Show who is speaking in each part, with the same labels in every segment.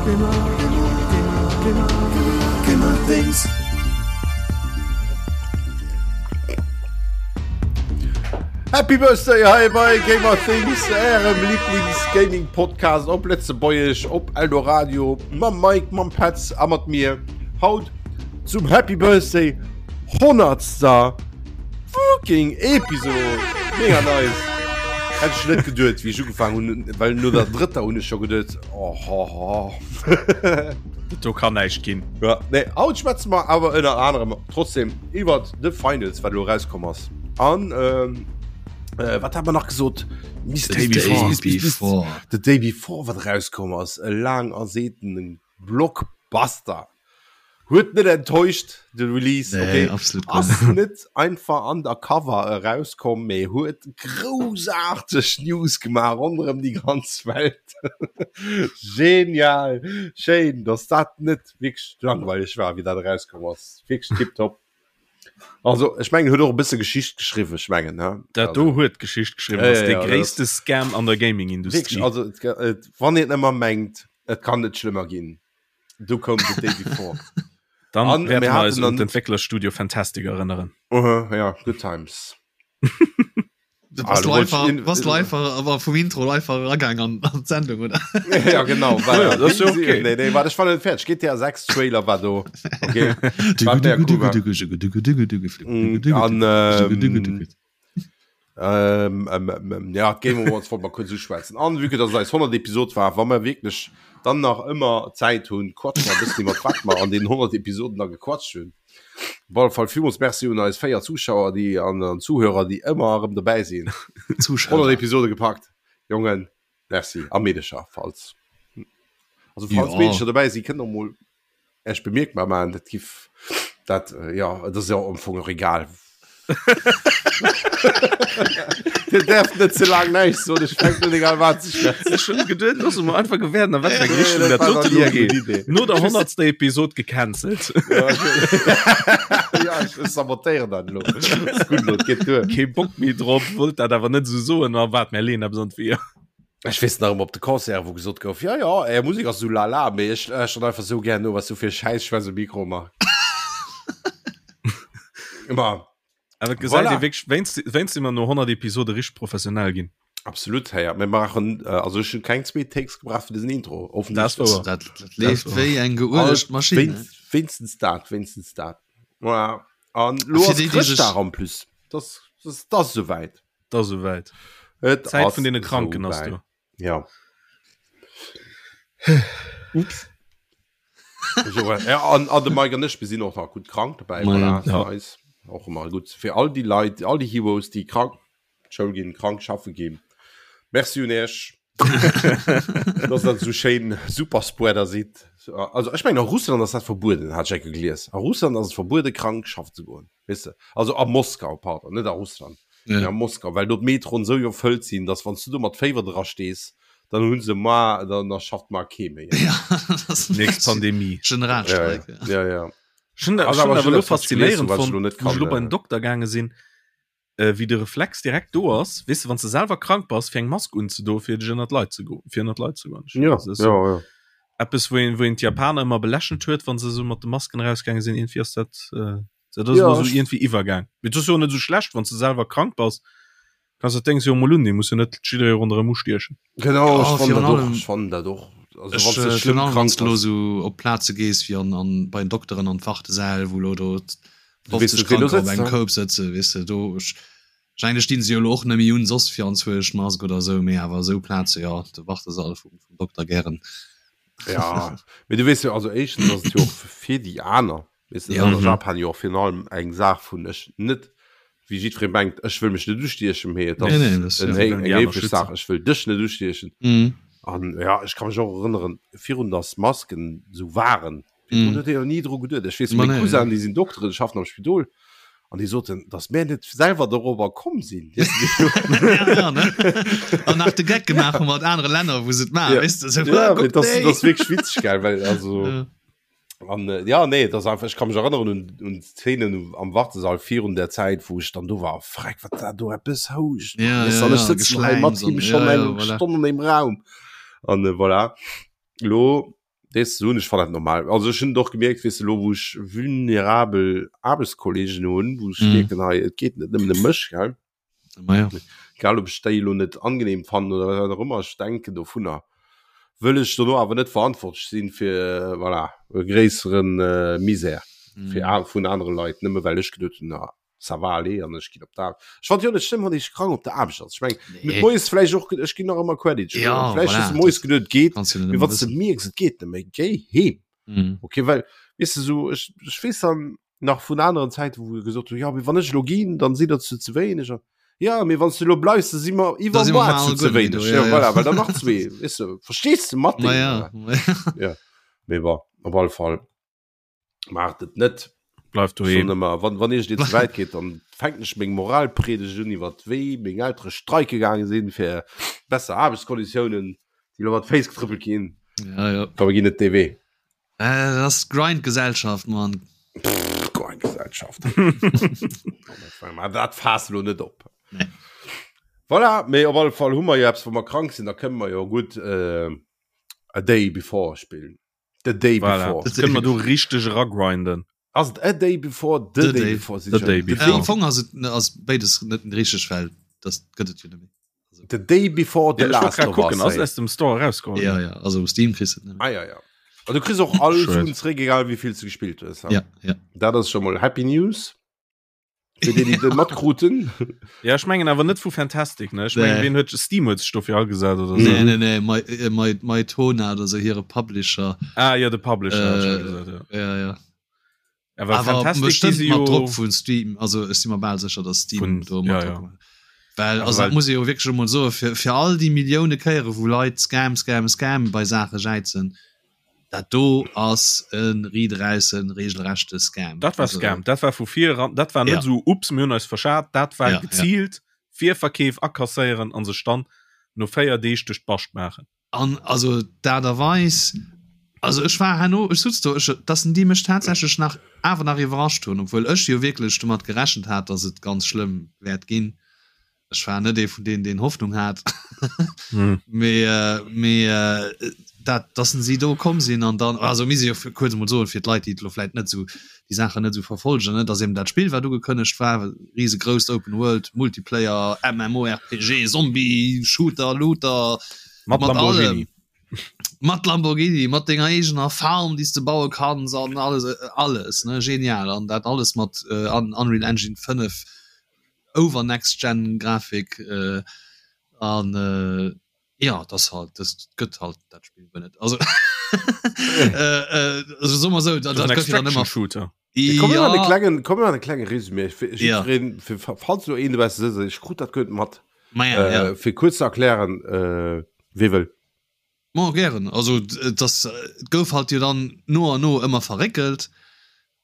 Speaker 1: Gamer Things. Happy Birthday hei bei Gamer Things, ärem Lieblings-Gaming-Podcast op Lëtzebuergesch, op Eldoradio, mam Mike, mam Petz a mat mir. Haut zum Happy Birthday 100. Fucking Episode! Mega nice! Hätt ech net geduet, wéi ech ugefaangen hunn, well no der drëtter hunn ech scho geduet, oh, ho, ho.
Speaker 2: Do kann näischt ginn.
Speaker 1: Ja, nee, haut schwätze mer awer ënner anerem trotzdem iwwer The Finals, wat elo erauskomm ass. An ähm, äh, wat hat mer nach gesot?
Speaker 3: Mist, The Day
Speaker 1: Mist, Mist, Mist,
Speaker 3: Before.
Speaker 1: The Day Before, wat erauskomm ass. E laang ersehtenen Blockbuster. Huet net enttäuscht de Release
Speaker 3: nee,
Speaker 1: okay.
Speaker 3: absolut
Speaker 1: ass net einfach undercover erauskomm, mee huet groussaarteg News gemaach ronderëm déi ganz Welt. Genial, schéin, dass dat net wierklech langweileg war, wéi dat erauskomm ass. Wierklech tiptop. Also ech mengen huet och e bësse Geschicht geschriwwen, ech mengen ne.
Speaker 2: Dat do huet Geschicht geschriwwen,
Speaker 1: Ja,
Speaker 2: ass
Speaker 1: ja,
Speaker 2: de
Speaker 1: ja, dat
Speaker 2: gréisste Scam an der Gaming-Industrie.
Speaker 1: Wierklech, also et, et, wann een ëmmer mengt, et kann net schlëmmer ginn. Du koum The Day Before.
Speaker 2: Dann
Speaker 1: An
Speaker 2: wäerte
Speaker 1: mir
Speaker 2: mer eis
Speaker 1: haten
Speaker 2: un
Speaker 1: dann-
Speaker 2: d'Entwécklerstudio Fantastic erënneren.
Speaker 1: Uh, ja, good times.
Speaker 3: Du
Speaker 1: Ah,
Speaker 3: warst
Speaker 1: du wolltest
Speaker 3: einfach,
Speaker 1: in-
Speaker 3: warst einfach aber vum Intro einfach eragaang an, an d'Sendung, oder?
Speaker 1: ja, genau. War,
Speaker 2: Ja, das ist ja okay.
Speaker 1: Nee, nee, warte, ich war nicht fertig. GTA 6 Trailer war do. Okay. War mega cool, war. Mm, An, ähm, Ähm, ähm, ähm, ja, d'Game Awards wollt mer kurz uschwätzen. An vue que dass et eis 100. Episod war, wa mer wierklech dann nach ëmmer Zäit hunn, quatsche mer e bëssen iwwer wat mer an den 100 Episoden da gequatscht hunn. Op alle Fall villmools Merci un eis 4 Zuschauer, déi an, an Zuhörer, déi ëmmer erëm dobäi sinn. 100
Speaker 3: Zuschauer.
Speaker 1: Episode gepackt, Jongen, merci. A Meedecher, falls, also falls
Speaker 3: Ja.
Speaker 1: Meedecher dobäi sinn, kënnt och mol Ech bemierkbar maachen, dat giff dat jo, et ass jo am Fong och egal. Dir däerft net ze laang näischt soen, ech fänken un egal wat ze schwätzen.
Speaker 2: Ech hunn geduet, loosse mer einfach gewäerden, a wat fir eng
Speaker 1: Nee,
Speaker 2: Richtung
Speaker 1: dat
Speaker 2: dat
Speaker 1: war
Speaker 2: dote
Speaker 1: nach ni
Speaker 2: lo
Speaker 1: eng gutt
Speaker 2: geet.
Speaker 1: Idee.
Speaker 2: No der honnertster Episod gecancelt.
Speaker 1: Ja, ech, ja, ech sabotéieren dat elo. Ass gutt elo, et geet duer.
Speaker 2: Kee Bock méi drop, wollt dat awer net esou soen, a waart, mär leeën eppes an d'Weeër.
Speaker 1: Ech weess nach ëmmer op de Concert, wou gesot gouf, ja, ja, är Musek ass sou lala, mee ech lauschteren einfach sou gär no, wat s du fir Schäiss schwätz um Mikro ëmmer. Ëmmer.
Speaker 2: Awer et gesäit
Speaker 1: Voilà.
Speaker 2: ee wierklech, wéinst, wéinst si mer no 100 Episode richteg professionell ginn.
Speaker 1: Absolut, hey, mir maachen, äh, also ech hunn keng zwee Takes gebraucht fir dësen Intro.
Speaker 2: Dat ass wouer.
Speaker 3: Dat, dat leeft wéi eng geuelegd Maschinn. ne?
Speaker 1: Wéinst, wéinstens dat, wéinstens dat. Voilà. An lo
Speaker 3: Fir
Speaker 1: ass
Speaker 3: déi, déi sech-
Speaker 1: Chrëschtdag en plus. Das, das, das ass souwäit.
Speaker 2: Dat ass esouwäit.
Speaker 1: Et
Speaker 2: Zäit
Speaker 1: ass
Speaker 2: vun deene Kranken ass
Speaker 1: souwäit.
Speaker 2: do.
Speaker 1: Ja. Ups. So, ja, an, an de Mike an ech, mir sinn och nach gutt krank dobäi.
Speaker 3: Ma
Speaker 1: Voilà,
Speaker 2: ja.
Speaker 1: ja. Nice. Och ëmmer gutt fir all déi Leit, all déi Heroes, déi krank d'Schoul ginn, krank schaffe ginn. Merci un Iech, dass der esou schéin Superspreader sidd. Also ech mengen a Russland ass dat verbueden, hat ech eng Kéier gelies. A Russland ass et verbuede krank schaffen ze goen. Weess de, also a Moskau, pardon, net a Russland,
Speaker 3: Ja.
Speaker 1: mee a Moskau, well do d'Metroen esou iwwerfëllt sinn, datt wann s du do mat Féiwer dra stees, dann hu se mar, dann da schafft mar kee méi.
Speaker 3: Ja, das ass
Speaker 2: Nächst Pandemie.
Speaker 3: Generalstreik.
Speaker 1: Ja, ja, ja.
Speaker 2: Ech hunn dat,
Speaker 1: Ass
Speaker 2: ech hunn
Speaker 1: awer
Speaker 2: awer
Speaker 1: schonn
Speaker 2: elo
Speaker 1: eppes, wat ech gelies hunn,
Speaker 2: faszinéierend
Speaker 1: wat ech
Speaker 2: fonnt,
Speaker 1: elo net
Speaker 2: wou ech
Speaker 1: kann,
Speaker 2: elo bei den
Speaker 1: äh,
Speaker 2: Dokter gaange sinn, äh, wéi de Reflex direkt do ass, weess de, wann s de selwer krank bass, fir eng Mask unzedoen, fir dech ënnert d'Leit ze goen, fir ënnert d'Leit ze goen. Ech
Speaker 1: Ja,
Speaker 2: das ist
Speaker 1: ja,
Speaker 2: so
Speaker 1: ja.
Speaker 2: eppes, wou een, wou een d'Japaner ëmmer belächelt huet, wann se esou mat de Masken erausgaange sinn, iergendwéi ass dat, äh, Dat ass
Speaker 1: Ja,
Speaker 2: elo sou
Speaker 1: ech-
Speaker 2: iergendwéi iwwergaang. Mee et ass jo och net esou schlecht, wann s de selwer krank bass, kanns dat Déngs jo emol undinnen, muss jo net jidderee ronderëm ustiechen.
Speaker 1: Genau,
Speaker 3: Ja,
Speaker 1: ech fannen
Speaker 3: virun
Speaker 1: dat och,
Speaker 3: allem-
Speaker 1: ech fannen dat och. Also
Speaker 3: Ech,
Speaker 1: wann s de
Speaker 3: äh,
Speaker 1: schlëmm
Speaker 3: virun allem,
Speaker 1: krank
Speaker 3: wann s du lo
Speaker 1: bass.
Speaker 3: sou op Plaze gees wéi an, an bei den Dokteren an d'Wartesäll, wou lo do
Speaker 1: Du weess
Speaker 3: 50
Speaker 1: net, wien do
Speaker 3: Kranker op
Speaker 1: sëtzt,
Speaker 3: engem
Speaker 1: ne?
Speaker 3: Koup sëtzen, weess de, do ech wahrscheinlech stinn se jo lo och net méi un soss fir anzwousch Mask oder sou, mee awer esou Plaze, jo, de Wartesall vum, vum Dokter gären.
Speaker 1: Ja, mee du weess jo, also éischtens ass et jo och fir déi aner. Weess de,
Speaker 3: Ja.
Speaker 1: dat ass a Japan jo och virun allem eng Saach vun ech net, wéi jiddweree mengt, ech wëll mech net ustiechen, mee et
Speaker 3: Nee, nee,
Speaker 1: ass
Speaker 3: das, ja.
Speaker 1: en
Speaker 2: Sie
Speaker 1: héi-
Speaker 2: wëllen
Speaker 1: eng
Speaker 2: déi aner
Speaker 1: héiflech
Speaker 2: schützen.
Speaker 1: Saach, ech wëll dech net ustiechen.
Speaker 3: Mhm.
Speaker 1: An ja, ech ka mech och erënneren, virun datt Masken esou waren, virdrun
Speaker 3: Mhm.
Speaker 1: huet ee jo ni dru geduet. Ech weess,
Speaker 3: Ma
Speaker 1: meng
Speaker 3: nee, ja.
Speaker 1: Cousinen, déi sinn Dokteren, schaffen am Spidol, an déi soten, datt mär net selwer dorobber komm sinn. Weess de,
Speaker 3: ja, ja, ne? An nach de Geck gemaach hu mat anere Länner, wou se et maachen,
Speaker 1: Ja.
Speaker 3: weess de, sou,
Speaker 1: Ja, mee
Speaker 3: guck
Speaker 1: dat ass,
Speaker 3: déi.
Speaker 1: dat ass wierklech witzeg, gell, well also.
Speaker 3: Ja.
Speaker 1: An äh, ja nee das einfach ich kann mich erinnern un, un Szenen am Wartesall virun der Zeit wo ich dann do war freck wat da do eppes housch
Speaker 3: Ja,
Speaker 1: Weißt
Speaker 3: ja,
Speaker 1: du, an ech
Speaker 3: ja,
Speaker 1: sitzen hei mat
Speaker 3: Geschläims
Speaker 1: him
Speaker 3: an-
Speaker 1: schon
Speaker 3: ja,
Speaker 1: eng
Speaker 3: ja, voilà.
Speaker 1: Stonn an dem Raum an äh, voilà lo. Dees ze hunn, ech fannen dat normal. Also ech hunn et och gemierkt, weess de, elo wou ech vulnerabel Aarbechtskollegen hunn, wou ech mierken, hei et geet net nëmmen ëm mech, gell.
Speaker 3: Ma ja.
Speaker 1: Egal ob ech déi elo net angenehm fannen oder wat och ëmmer ech denken dovunner, wëll ech dono awer net verantwortlech sinn fir, voilà, e gréissere Misär fir vun anere Leit, nëmme well ech geduet hunn, ça va aller an ech ginn op d'Aarbecht. Ech fand jo net schlëmm, wann ee krank op der Aarbecht ass. Ech meng, nee. moies vläicht och, ech ginn nach ëmmer Credit.
Speaker 3: Ja,
Speaker 1: vläicht
Speaker 3: voilà,
Speaker 1: hues du moies geduet, geet,
Speaker 3: kannst du net
Speaker 1: mee
Speaker 3: ëmmer
Speaker 1: wann s de
Speaker 3: wëssen.
Speaker 1: mierks, et geet net méi, géi heem.
Speaker 3: Mhm.
Speaker 1: Okay, well, weess de, sou, ech, ech weess dann nach vun aneren Zäiten, wou gesot hu, ja, mee wann ech elo ginn, dann sinn der zu ze wéineg. An, ja, mee wann s du elo bleifs, da si mer
Speaker 3: Da si mer
Speaker 1: iwwermoar
Speaker 3: mal
Speaker 1: zu ze
Speaker 3: guer net méi do,
Speaker 1: wéineg.
Speaker 3: ja,
Speaker 1: Ja,
Speaker 3: ja.
Speaker 1: voilà, well dann nach zwee, weess de, verstees de mat
Speaker 3: Ma
Speaker 1: deenen,
Speaker 3: ja,
Speaker 1: oder?
Speaker 3: ma ja.
Speaker 1: Ja, mee bon, op alle Fall. Maacht et net.
Speaker 2: Bleift doheem.
Speaker 1: Ëmmer, wann, wann Iech dir ze wäit geet, dann fänken ech meng Moralpredigt un iwwer wéi meng Eltere streike gaange sinn fir besser Aarbechtskonditiounen, déi lo mat Féiss getrëppelt ginn.
Speaker 3: Ja, ja.
Speaker 1: Komm, mir ginn net dee Wee.
Speaker 3: Äh, dat ass Grind-Gesellschaft, Mann.
Speaker 1: Grind-Gesellschaft. Dat faass lo net op.
Speaker 3: Nee.
Speaker 1: Voilà, mee op alle Fall hu mer jo eppes, wa mer krank sinn, da kënne mer jo gutt äh, A Day Before spillen. The Day
Speaker 2: voilà.
Speaker 1: Before.
Speaker 2: Das können wir du richtig ragrinden.
Speaker 1: Ass et A Day Before, The,
Speaker 3: the
Speaker 1: Day,
Speaker 3: Day
Speaker 1: Before?
Speaker 2: The Day Before.
Speaker 3: Ja, am Fong ass et ass beides net richtig, well das gëtt et jo net méi.
Speaker 1: Also. The Day Before The
Speaker 2: ja,
Speaker 1: Last of
Speaker 2: gucken,
Speaker 1: Us.
Speaker 2: Ass aus dem Store rausgekommen.
Speaker 3: Ja, ja, also um Steam kriegst du et net
Speaker 1: Ah, ja, ja. Also, du kriegst och all Suen zréck, egal wéi vill du gespielt hues.
Speaker 3: Ja, ja.
Speaker 1: Dat ass schon mal Happy News. Fir déi, déi dat matkruten.
Speaker 2: Ja, ech mengen awer net vu Fantastic, ne? Ech mengen,
Speaker 3: Nee.
Speaker 2: wien huet Steam huet sech dofir agesat oder
Speaker 3: Nee,
Speaker 2: sou.
Speaker 3: nee, nee, My, äh, My, Mytona oder so hire Publisher.
Speaker 2: Ah ja, de Publisher hat schon
Speaker 3: Äh,
Speaker 2: gesat, ja.
Speaker 3: Ja, ja.
Speaker 2: Awer
Speaker 3: Awer
Speaker 2: Fantastic, déi
Speaker 3: bestimmt
Speaker 2: si
Speaker 3: mat
Speaker 2: jo
Speaker 3: Drock vun Steam. Also ech si mer bal sécher, dass Steam
Speaker 2: Vun-
Speaker 3: do mat
Speaker 2: ja,
Speaker 3: Drock
Speaker 2: ja.
Speaker 3: gemaach huet. Well,
Speaker 2: Awer
Speaker 3: also dat
Speaker 2: well-
Speaker 3: muss ee jo wierklech emol soen, fir, fir all déi Millioune Kéiere wou Leit Scam, Scam, Scam bei Saache jäizen, Dat do ass e riiderausse regelrechte Scam.
Speaker 2: Dat war Scam, dat war vu vir eran, dat war net
Speaker 3: Ja.
Speaker 2: esou ups, mir hunn eis verschat, dat war
Speaker 3: Ja, ja.
Speaker 2: geziilt Virverkeef akasséieren an sech dann no 4 Deeg duerch d'Bascht maachen.
Speaker 3: An also d'Aart a Weis, also ech war herno, ech sutz do, ech, dass en déi mech tatsächlech nach awer nach iwwerrascht hunn, obwuel ech jo wierklech domat gerechent hat, dass et ganz schlëmm wäert ginn. Ech war net ee vun deenen, deen Hoffnung hat.
Speaker 2: Hm.
Speaker 3: Mee, äh, mee äh, dat, dass si do komm sinn an dann, also mir si jo fir, kuerz emol soen, fir d'Leit, déi et elo vläit net esou, déi Saachen net esou verfolgen, ne, dass eben dat Spill, wat ugekënnegt war, risegrousst Open World, Multiplayer, MMORPG, Zombie, Shooter, Looter,
Speaker 2: Mat
Speaker 3: mat allem,
Speaker 2: Lamborghini.
Speaker 3: mat Lamborghini, mat denger eegener Farm, déi s de baue kanns an alles, alles, ne, genial. An dat alles mat äh, Unreal Engine 5 over next gen Grafik an jo et ass halt dës gëtt halt dat Spill guer net also also soe mer esou dat dat gëtt jo dann ëmmer
Speaker 2: Shooter.
Speaker 1: Komm mir
Speaker 3: ja
Speaker 1: e klengen komm mir e klenge Résumé fir
Speaker 3: Ja.
Speaker 1: jiddwereen fir falls lo een dobausse sëtzt ech krut dat guer net mat
Speaker 3: ma ja ja
Speaker 1: äh, fir kuerz ze erklären äh, wee wëll.
Speaker 3: Ma gären also et ass et gouf halt jo dann no an no ëmmer verréckelt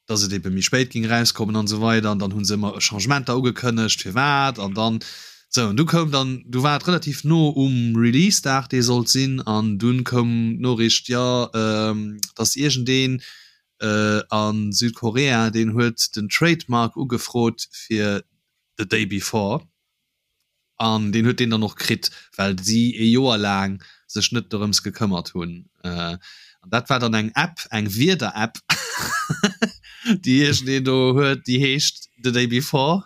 Speaker 3: dass et ebe méi spéit géing erauskommen an esou weider an dann hu se ëmmer Changementer ugekënnegt firwat an dann sou an du koum dann du war et relativ no um Release-Dag dee sollt sinn an dunn koum d'Noriicht jo dass iergendeen a Südkorea deen huet den Trademark ugefrot fir The Day Before. An deen huet deen dann och kritt, well si ee Joer laang sech net dorëms gekëmmert hunn. An dat war dann eng App, eng Wieder-App, déi iergendeen do huet, déi heescht The Day Before.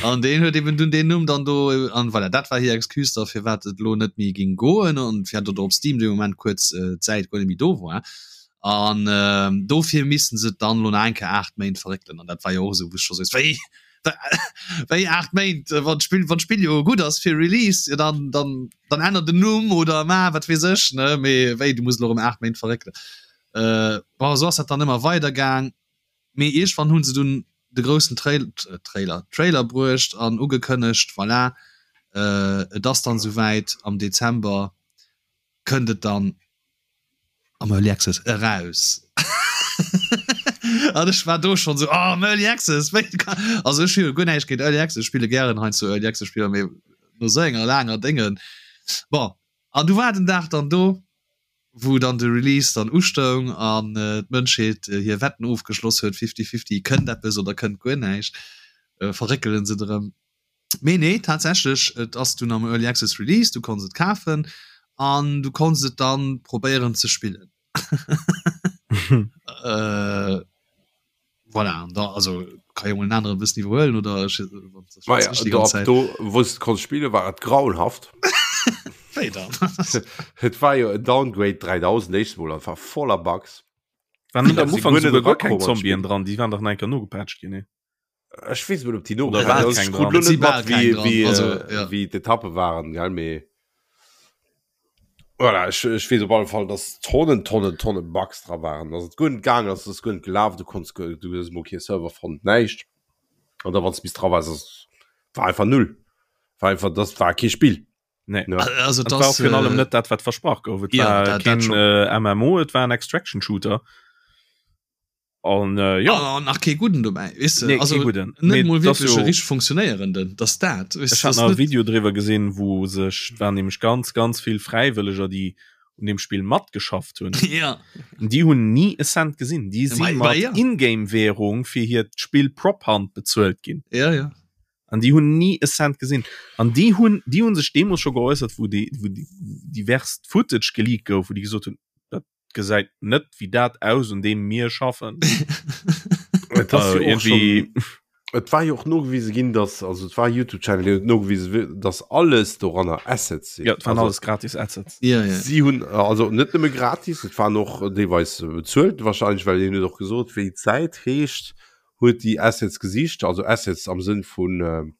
Speaker 3: An deen huet eben dunn deen Numm dann do. An voilà, dat war hir Excuse da firwat et elo net méi géing goen an firwat och op Steam dee Moment kuerz d'Säit guer net méi do war. An dofir missten se et dann elo nach eng Kéier 8 Méint verréckelen. An dat war jo och esou, wou ech scho sot, wéi? Wéi 8 Méint? Wann d'Spill, wann d'Spill jo gutt ass fir Release, jo dann, dann, dann ännert den Numm oder ma wat weess ech, ne? Mee wéi, du muss elo erëm 8 Méint verréckelen. Äh, bon, esou ass dat dann ëmmer weider gaang. Mee iergendwann hu se dunn de groussen Trail, Trailer, Trailer bruecht an ugekënnegt, voilà, äh, et ass dann esouwäit, am Dezember kënnt et dann am Early Access eraus. An ech war do schon so oh, am Early Access wéi kann also ech hu jo guer näischt géint Early Access, ech spille gären heiansdo Early Access Spiller, mee no sou enger laanger Déngen. Bon, an du war den Dag dann do, wou dann de Release dann ustoung an d'Mënschheet hir Wetten ofgeschloss huet, fifty-fifty, kënnt eppes oder kënnt guer näischt, verréckelen se et erëm. Mee nee, tatsächlech, et ass dunn am Early Access Release, du konns et kafen an du konns et dann probéieren ze spillen. Äh, voilà, an da also kann jo mol en aneren bëssen iwwerhuelen oder ech,
Speaker 1: Ma ja, do, ab do wou s konns spille war et grauenhaft.
Speaker 3: Wéi dann?
Speaker 1: Et war jo en Downgrade 3000 éischt mol an war voller Bugs.
Speaker 2: Waren net am Ufank souguer guer keng Zombien dran, déi waren dach nach eng Kéier nogepatcht ginn, nee?
Speaker 1: Ech weess net, ob déi
Speaker 2: Oder war
Speaker 1: nogepatcht
Speaker 2: keng
Speaker 1: ginn.
Speaker 2: dran?
Speaker 1: Ech krut lo net mat, wéi, wéi,
Speaker 3: Also, ja.
Speaker 1: wéi d'Etappe waren, gell, mee voilà, ech, ech weess op alle Fall, dass Tonnen, Tonnen, Tonnen Bugs dra waren, dass et guer net gaangen ass, dass guer net gelaf, du konns, du hues emol kee Server fonnt, näischt. An da wann s du bis dra waars, ass, war einfach null. War einfach, das war kee Spill.
Speaker 2: Nee.
Speaker 1: Ja.
Speaker 3: Also
Speaker 2: Das war
Speaker 3: das,
Speaker 2: virun allem
Speaker 3: äh,
Speaker 2: net dat wat versprach gouf. Et
Speaker 3: ja,
Speaker 2: war
Speaker 3: dat- dat
Speaker 2: keen
Speaker 3: schon.
Speaker 2: äh, MMO, et war en Extraction Shooter. An äh, ja,
Speaker 3: an nach kee gudden dobäi, weess de?
Speaker 2: nee,
Speaker 3: Also
Speaker 2: kee gudden.
Speaker 3: net
Speaker 2: Mee
Speaker 3: mol
Speaker 2: das
Speaker 3: wierklech
Speaker 2: jo-
Speaker 3: e richteg funktionéierenden, dass dat, weess
Speaker 2: Ech
Speaker 3: de,
Speaker 2: hat
Speaker 3: das
Speaker 2: nach e
Speaker 3: net
Speaker 2: Video driwwer gesinn, wou sech waren nämlech ganz ganz vill Fräiwëlleger, déi un dem Spill matgeschafft hunn.
Speaker 3: Ja.
Speaker 2: Déi hunn ni e Cent gesinn. Déi
Speaker 3: Ma-
Speaker 2: si
Speaker 3: ma
Speaker 2: mat
Speaker 3: ja.
Speaker 2: Ingame-Währung fir hiert Spill Prop Hunt bezuelt ginn.
Speaker 3: Ja, ja.
Speaker 2: An déi hunn ni e Cent gesinn. An déi hunn, déi hunn sech deemools scho geäussert, wou déi, wou déi diverst Footage geleakt gouf, wou déi gesot hunn, dat gesäit net wéi dat aus, un deem mir schaffen.
Speaker 1: Et ass
Speaker 2: Also
Speaker 1: jo och
Speaker 2: irgendwie,
Speaker 1: schon, et war jo och nogewise ginn, dass, also et war e YouTube-Channel, deen huet nogewise, dass alles doranner Assets sinn.
Speaker 2: ja, et waren
Speaker 1: Also
Speaker 2: alles gratis Assets.
Speaker 3: Ja, ja.
Speaker 1: si hunn, also net nëmme gratis, et waren och deelweis bezuelt wahrscheinlech, well hien huet och gesot, wéi d'Säit heescht, huet déi Assets gesicht, also Assets am Sënn vun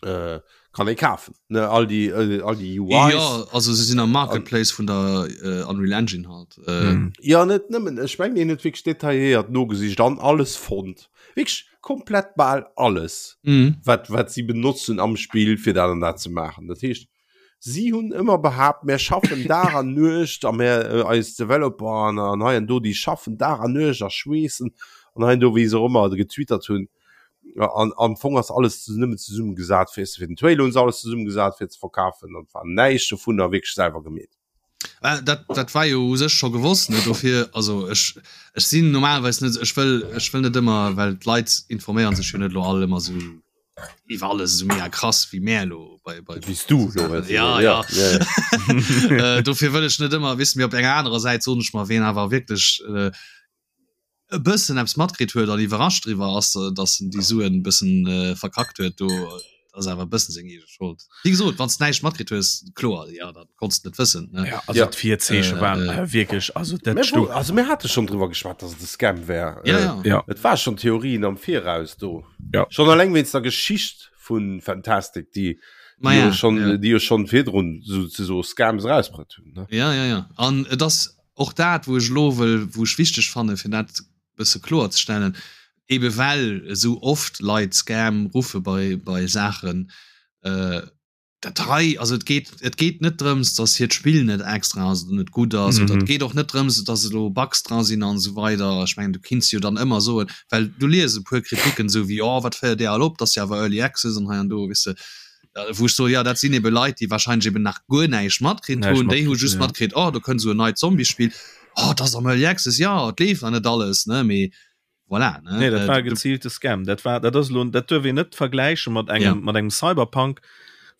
Speaker 1: äh, kann ee kafen, ne, all déi äh, all déi UIs.
Speaker 3: Ja, also se sinn am Marketplace vun der äh, Unreal Engine halt. Äh,
Speaker 2: Mhm.
Speaker 1: Ja, net nëmmen, ech mengen, hien huet wierklech detailléiert nogesicht an alles fonnt. Wierklech komplett bal alles,
Speaker 3: mhm.
Speaker 1: wat, wat si benotzen am Spill, fir dat an dat ze maachen. Dat heescht, Si hunn ëmmer behaapt, mär schaffen Dag an Nuecht a mär, eis Developer an an hei an do, déi schaffen Dag an Nuecht a schweessen an hei an do, wéi se och ëmmer getwittert hunn. An am Fong ass alles nëmmen zesummegesat fir, fir den Trailer hunn se alles zesummegesat fir ze verkafen an et war näischt dovunner wierklech selwer gemeet.
Speaker 3: Dat, dat war jo u sech scho gewosst, ne? Dofir, also ech, ech sinn normalerweis net, ech wëll, ech wëll net ëmmer, well d'Leit informéiere sech jo net elo all ëmmer esou iwwer alles esou mega krass wéi mär elo bei, bei
Speaker 1: Wéi s du elo wëlls.
Speaker 3: Ja, ja.
Speaker 1: ja, ja.
Speaker 3: Äh, dofir wëll ech net ëmmer, weess de, mee op enger anerer Säit soen ech mer, ween awer wierklech äh, e bëssen eppes matkritt huet an iwwerrascht driwwer ass, datt en déi Suen e bëssen äh, verkackt huet, do ass awer e bëssen seng eege Schold. Wéi gesot, wann s de näischt matkritt hues, kloer, ja, da konns de net wëssen, ne?
Speaker 2: Ja, also
Speaker 1: Ja.
Speaker 2: d'Virzeeche
Speaker 3: Äh,
Speaker 2: waren
Speaker 3: äh.
Speaker 2: äh, wierklech, also dat
Speaker 1: Mir
Speaker 2: sto
Speaker 1: wo, also mir hate schonn driwwer geschwat, datt et e Scam wär.
Speaker 3: Ja,
Speaker 1: Äh,
Speaker 3: ja.
Speaker 2: ja.
Speaker 1: Et war schonn Theorien am Viraus do.
Speaker 2: Ja.
Speaker 1: Schonn alleng wéinst der Geschicht vu Fantastic, déi,
Speaker 3: Ma
Speaker 1: déi
Speaker 3: ja,
Speaker 1: jo schonn,
Speaker 3: ja.
Speaker 1: déi jo schonn virdrun souzesoe Scams erausbruet hunn, ne?
Speaker 3: Ja, ja, ja. An et ass och dat, wou ech elo wëll, wou ech wichteg fanne fir dat bësse kloer ze stellen, ebe well esou oft Leit Scam ruffe bei, bei Saachen, äh, dat hei, also et geet, et geet net drëms, datt hiert Spill net extra ass oder net gutt ass, oder et
Speaker 2: Mhm.
Speaker 3: geet och net drëms, datt elo Bugs dra sinn an esou weider. Ech mengen, du kinns jo dann ëmmer soen, well du lies e puer Kritiken esou wéi, oh wat féiert Dir all op, dat ass jo awer Early Access an hei an do, weess de, wou ech soen, jo dat sinn ebe Leit, déi wahrscheinlech eben nach guer näischt matkritt
Speaker 2: Näischt
Speaker 3: hunn, déi hu
Speaker 2: matkritt
Speaker 3: just
Speaker 2: hunn, ja.
Speaker 3: matkritt, oh do kënnt esou en neit Zombiespill, oh dat ass am Early Access, jo et leeft nach net alles, ne, mee voilà, ne.
Speaker 2: Nee, dat war e geziilte Scam. Dat war, dat ass elo, dat duerf een net vergläiche mat engem,
Speaker 3: Ja.
Speaker 2: mat engem Cyberpunk,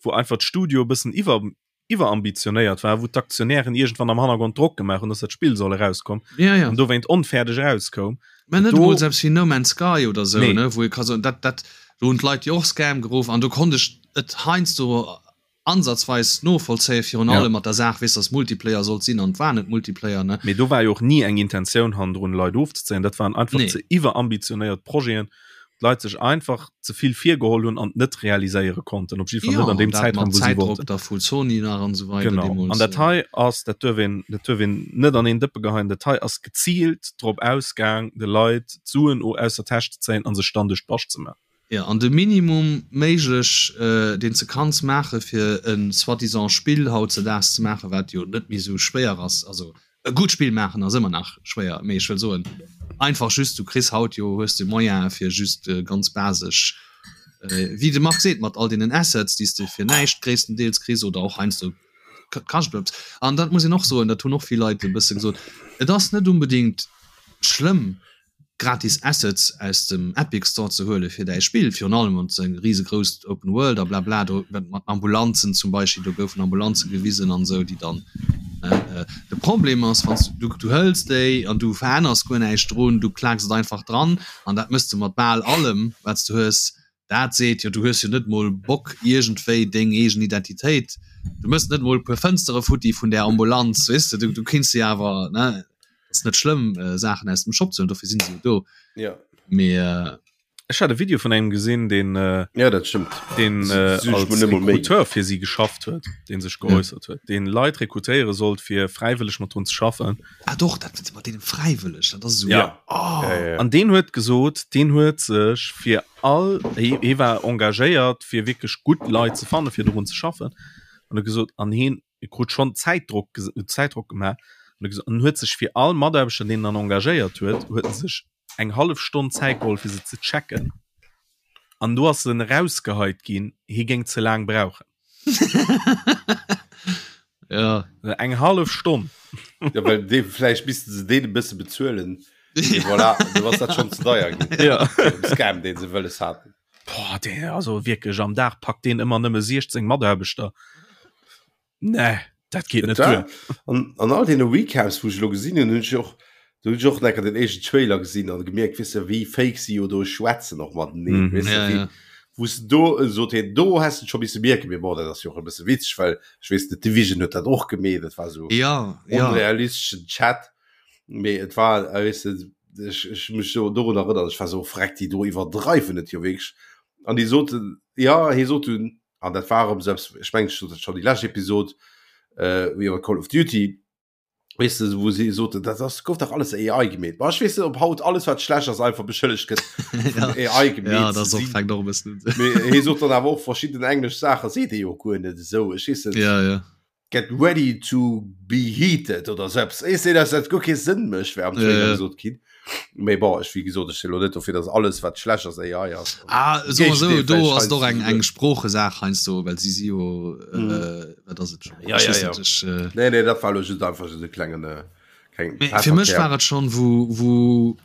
Speaker 2: wou einfach d'Studio e bëssen iwwer, iwwerambitionéiert war, wou d'Aktionären iergendwann am Hannergrond Drock gemaach hunn, dass dat Spill soll erauskommen
Speaker 3: Ja, ja.
Speaker 2: an dowéint onfäerdeg erauskoum.
Speaker 3: Mä net
Speaker 2: Do-
Speaker 3: emol selbst wéi No Man's Sky oder sou,
Speaker 2: Nee.
Speaker 3: ne, wou ee ka soen, dat, dat, do hunn d'Leit jo och Scam geruff an do konnt ech et heiansdo ansatzweis novollzéien, virun
Speaker 2: Ja.
Speaker 3: allem mat der Saach, weess, dass Multiplayer sollt sinn an et war net Multiplayer, ne.
Speaker 2: Mee do war jo och ni eng Intentioun hannendrun, Leit ofzezéien. Dat waren einfach
Speaker 3: Nee.
Speaker 2: ze iwwerambitionéiert Projeten, wou d'Leit sech einfach ze vill virgeholl hunn an et net realiséiere konnten, op jidde Fall net an deem
Speaker 3: dat
Speaker 2: Zäitraum,
Speaker 3: mat
Speaker 2: wou si
Speaker 3: Zäitdrock
Speaker 2: wollten.
Speaker 3: da vu Sony nach an esou weider
Speaker 2: Genau.
Speaker 3: deemools.
Speaker 2: An dat hei ass, dat duerf een, dat duerf een net an een Dëppe geheien, dat hei ass geziilt drop ausgaang, de Leit d'Suen aus der Täsch ze zéien a sech dann duerch d'Bascht ze maachen.
Speaker 3: Jo, an de Minimum méiglech, deen s de kanns maache fir e soi-disant Spill hautzedaags ze maachen, wat jo net méi esou schwéier ass, also e gutt Spill maachen ass ëmmer nach schwéier, mee ech wëll soen einfach just, du kriss haut jo, hues de Moyene fir just ganz basesch, wéi de Marc seet, mat all deenen Assets, déi s de fir näischt gréisstendeels kriss oder och heiansdo kascht et eppes. An dat muss een och soen, dat hunn och vill Leit e bësse gesot, et ass net unbedingt schlëmm, gratis Assets aus dem Epic Store ze huele fir däi Spill, virun allem wann s de eng risegrousst Open World a blabla do mat Ambulanzen zum Beispill, do goufen Ambulanze gewisen an esou, déi dann. De Problem ass, wann s du, du hëls déi an du veränners guer näischt drun, du klaaks et einfach dran an dat mëss de mat bal allem, wat s du hues. Dat seet jo, du hues jo net mol Bock iergendwéi deng eegen Identitéit, du mëss net mol e puer Fënstere futti vun där Ambulanz, weess de, du kinns se awer, ne, ass net schlëmm Saachen aus dem Shop ze huelen, dofir sinn se jo do.
Speaker 1: Ja.
Speaker 3: Mee.
Speaker 2: Ech hat e Video vun engem gesinn, deen
Speaker 1: ja, dat stimmt.
Speaker 2: den äh, als Rekruteur fir si geschafft huet, deen sech geäussert huet, deen Leit rekrutéiere sollt fir fräiwëlleg mat drun ze schaffen.
Speaker 3: Ah doch, dat mat deenen fräiwëlleg, dat ass esou.
Speaker 2: Ja. Oh. Ja, ja, ja. An deen huet gesot, deen huet sech fir all hie, hie war engagéiert fir wierklech gutt Leit ze fanne fir dorun ze schaffen an huet gesot an hien krut schonn Zäitdrock Zäitdrock gemaach an huet gesot an huet sech fir all Mataarbechter deen en dann engagéiert huet, huet en sech eng hallef Stonn Zäit geholl fir se ze checken an do ass en erausgeheit ginn, hie géing ze laang brauchen.
Speaker 3: Ja.
Speaker 2: Eng hallef Stonn.
Speaker 1: Ja, well dee vläicht misste se deen e bësse bezuelen. Et voilà, du ass dat schonn ze deier ginn.
Speaker 2: Ja.
Speaker 1: Scam, deen se wëlles haten.
Speaker 2: Boah, dee, also wierklech am Dag packt deen ëmmer nëmme 16 Mataarbechter. Nee, dat geet net duer.
Speaker 1: An, an all deene Recaps, wou ech elo gesinn hunn, hunn ech och, do hunn ech och enker den éischten Trailer gesinn an gemierkt, weess de, wéi fake si jo do schwätzen och mateneen, mm, weess de, ja, wéi, ja. wou se do äh, sot hien, do has du scho misse mierken, mee bon, dat ass jo och e bësse witzeg, well ech weess net, Division huet dat och gemeet, dat war sou
Speaker 3: ja,
Speaker 1: ja. onrealisteschen Chat, mee et war, äh, weess de, ech, ech mech do dorun erënnern, ech war sou, freck, déi do iwwerdreiwen et jo wierklech. An déi soten, ja, hie sot dunn, an dat war erëm selbst ech mengen ech sot dat schon déi lescht Episod äh, iwwer Call of Duty weess de wou si soten dat ass gouf dach alles AI gemeet. Ma ech weess net ob haut alles wat schlecht ass einfach beschëllegt gëtt
Speaker 3: vun AI gemeet ja, dat ass och fänkt och e bëssen
Speaker 1: un. Mee hie sot dann awer och verschidden englesch Saache seet e jo guer net esou ech weess net.
Speaker 3: Ja, ja.
Speaker 1: Get ready to be heated oder sou eppes. Ech sinn, dass dat guer kee Sënn mécht, wär am Trailer gesot ginn. Mee bon, ech, wéi gesot, ech sinn elo net dofir, dass alles, wat schlecht ass, AI ass.
Speaker 3: Ah, soe mer sou, do ass et och eng, eng Sproochesaach heiansdo, well si si jo, wat ass et
Speaker 1: scho? Ja, ja, ja. Ech, Nee, nee, dat war elo just einfach just e klengen,
Speaker 3: keng. Mee fir mech war et schonn, wou, wou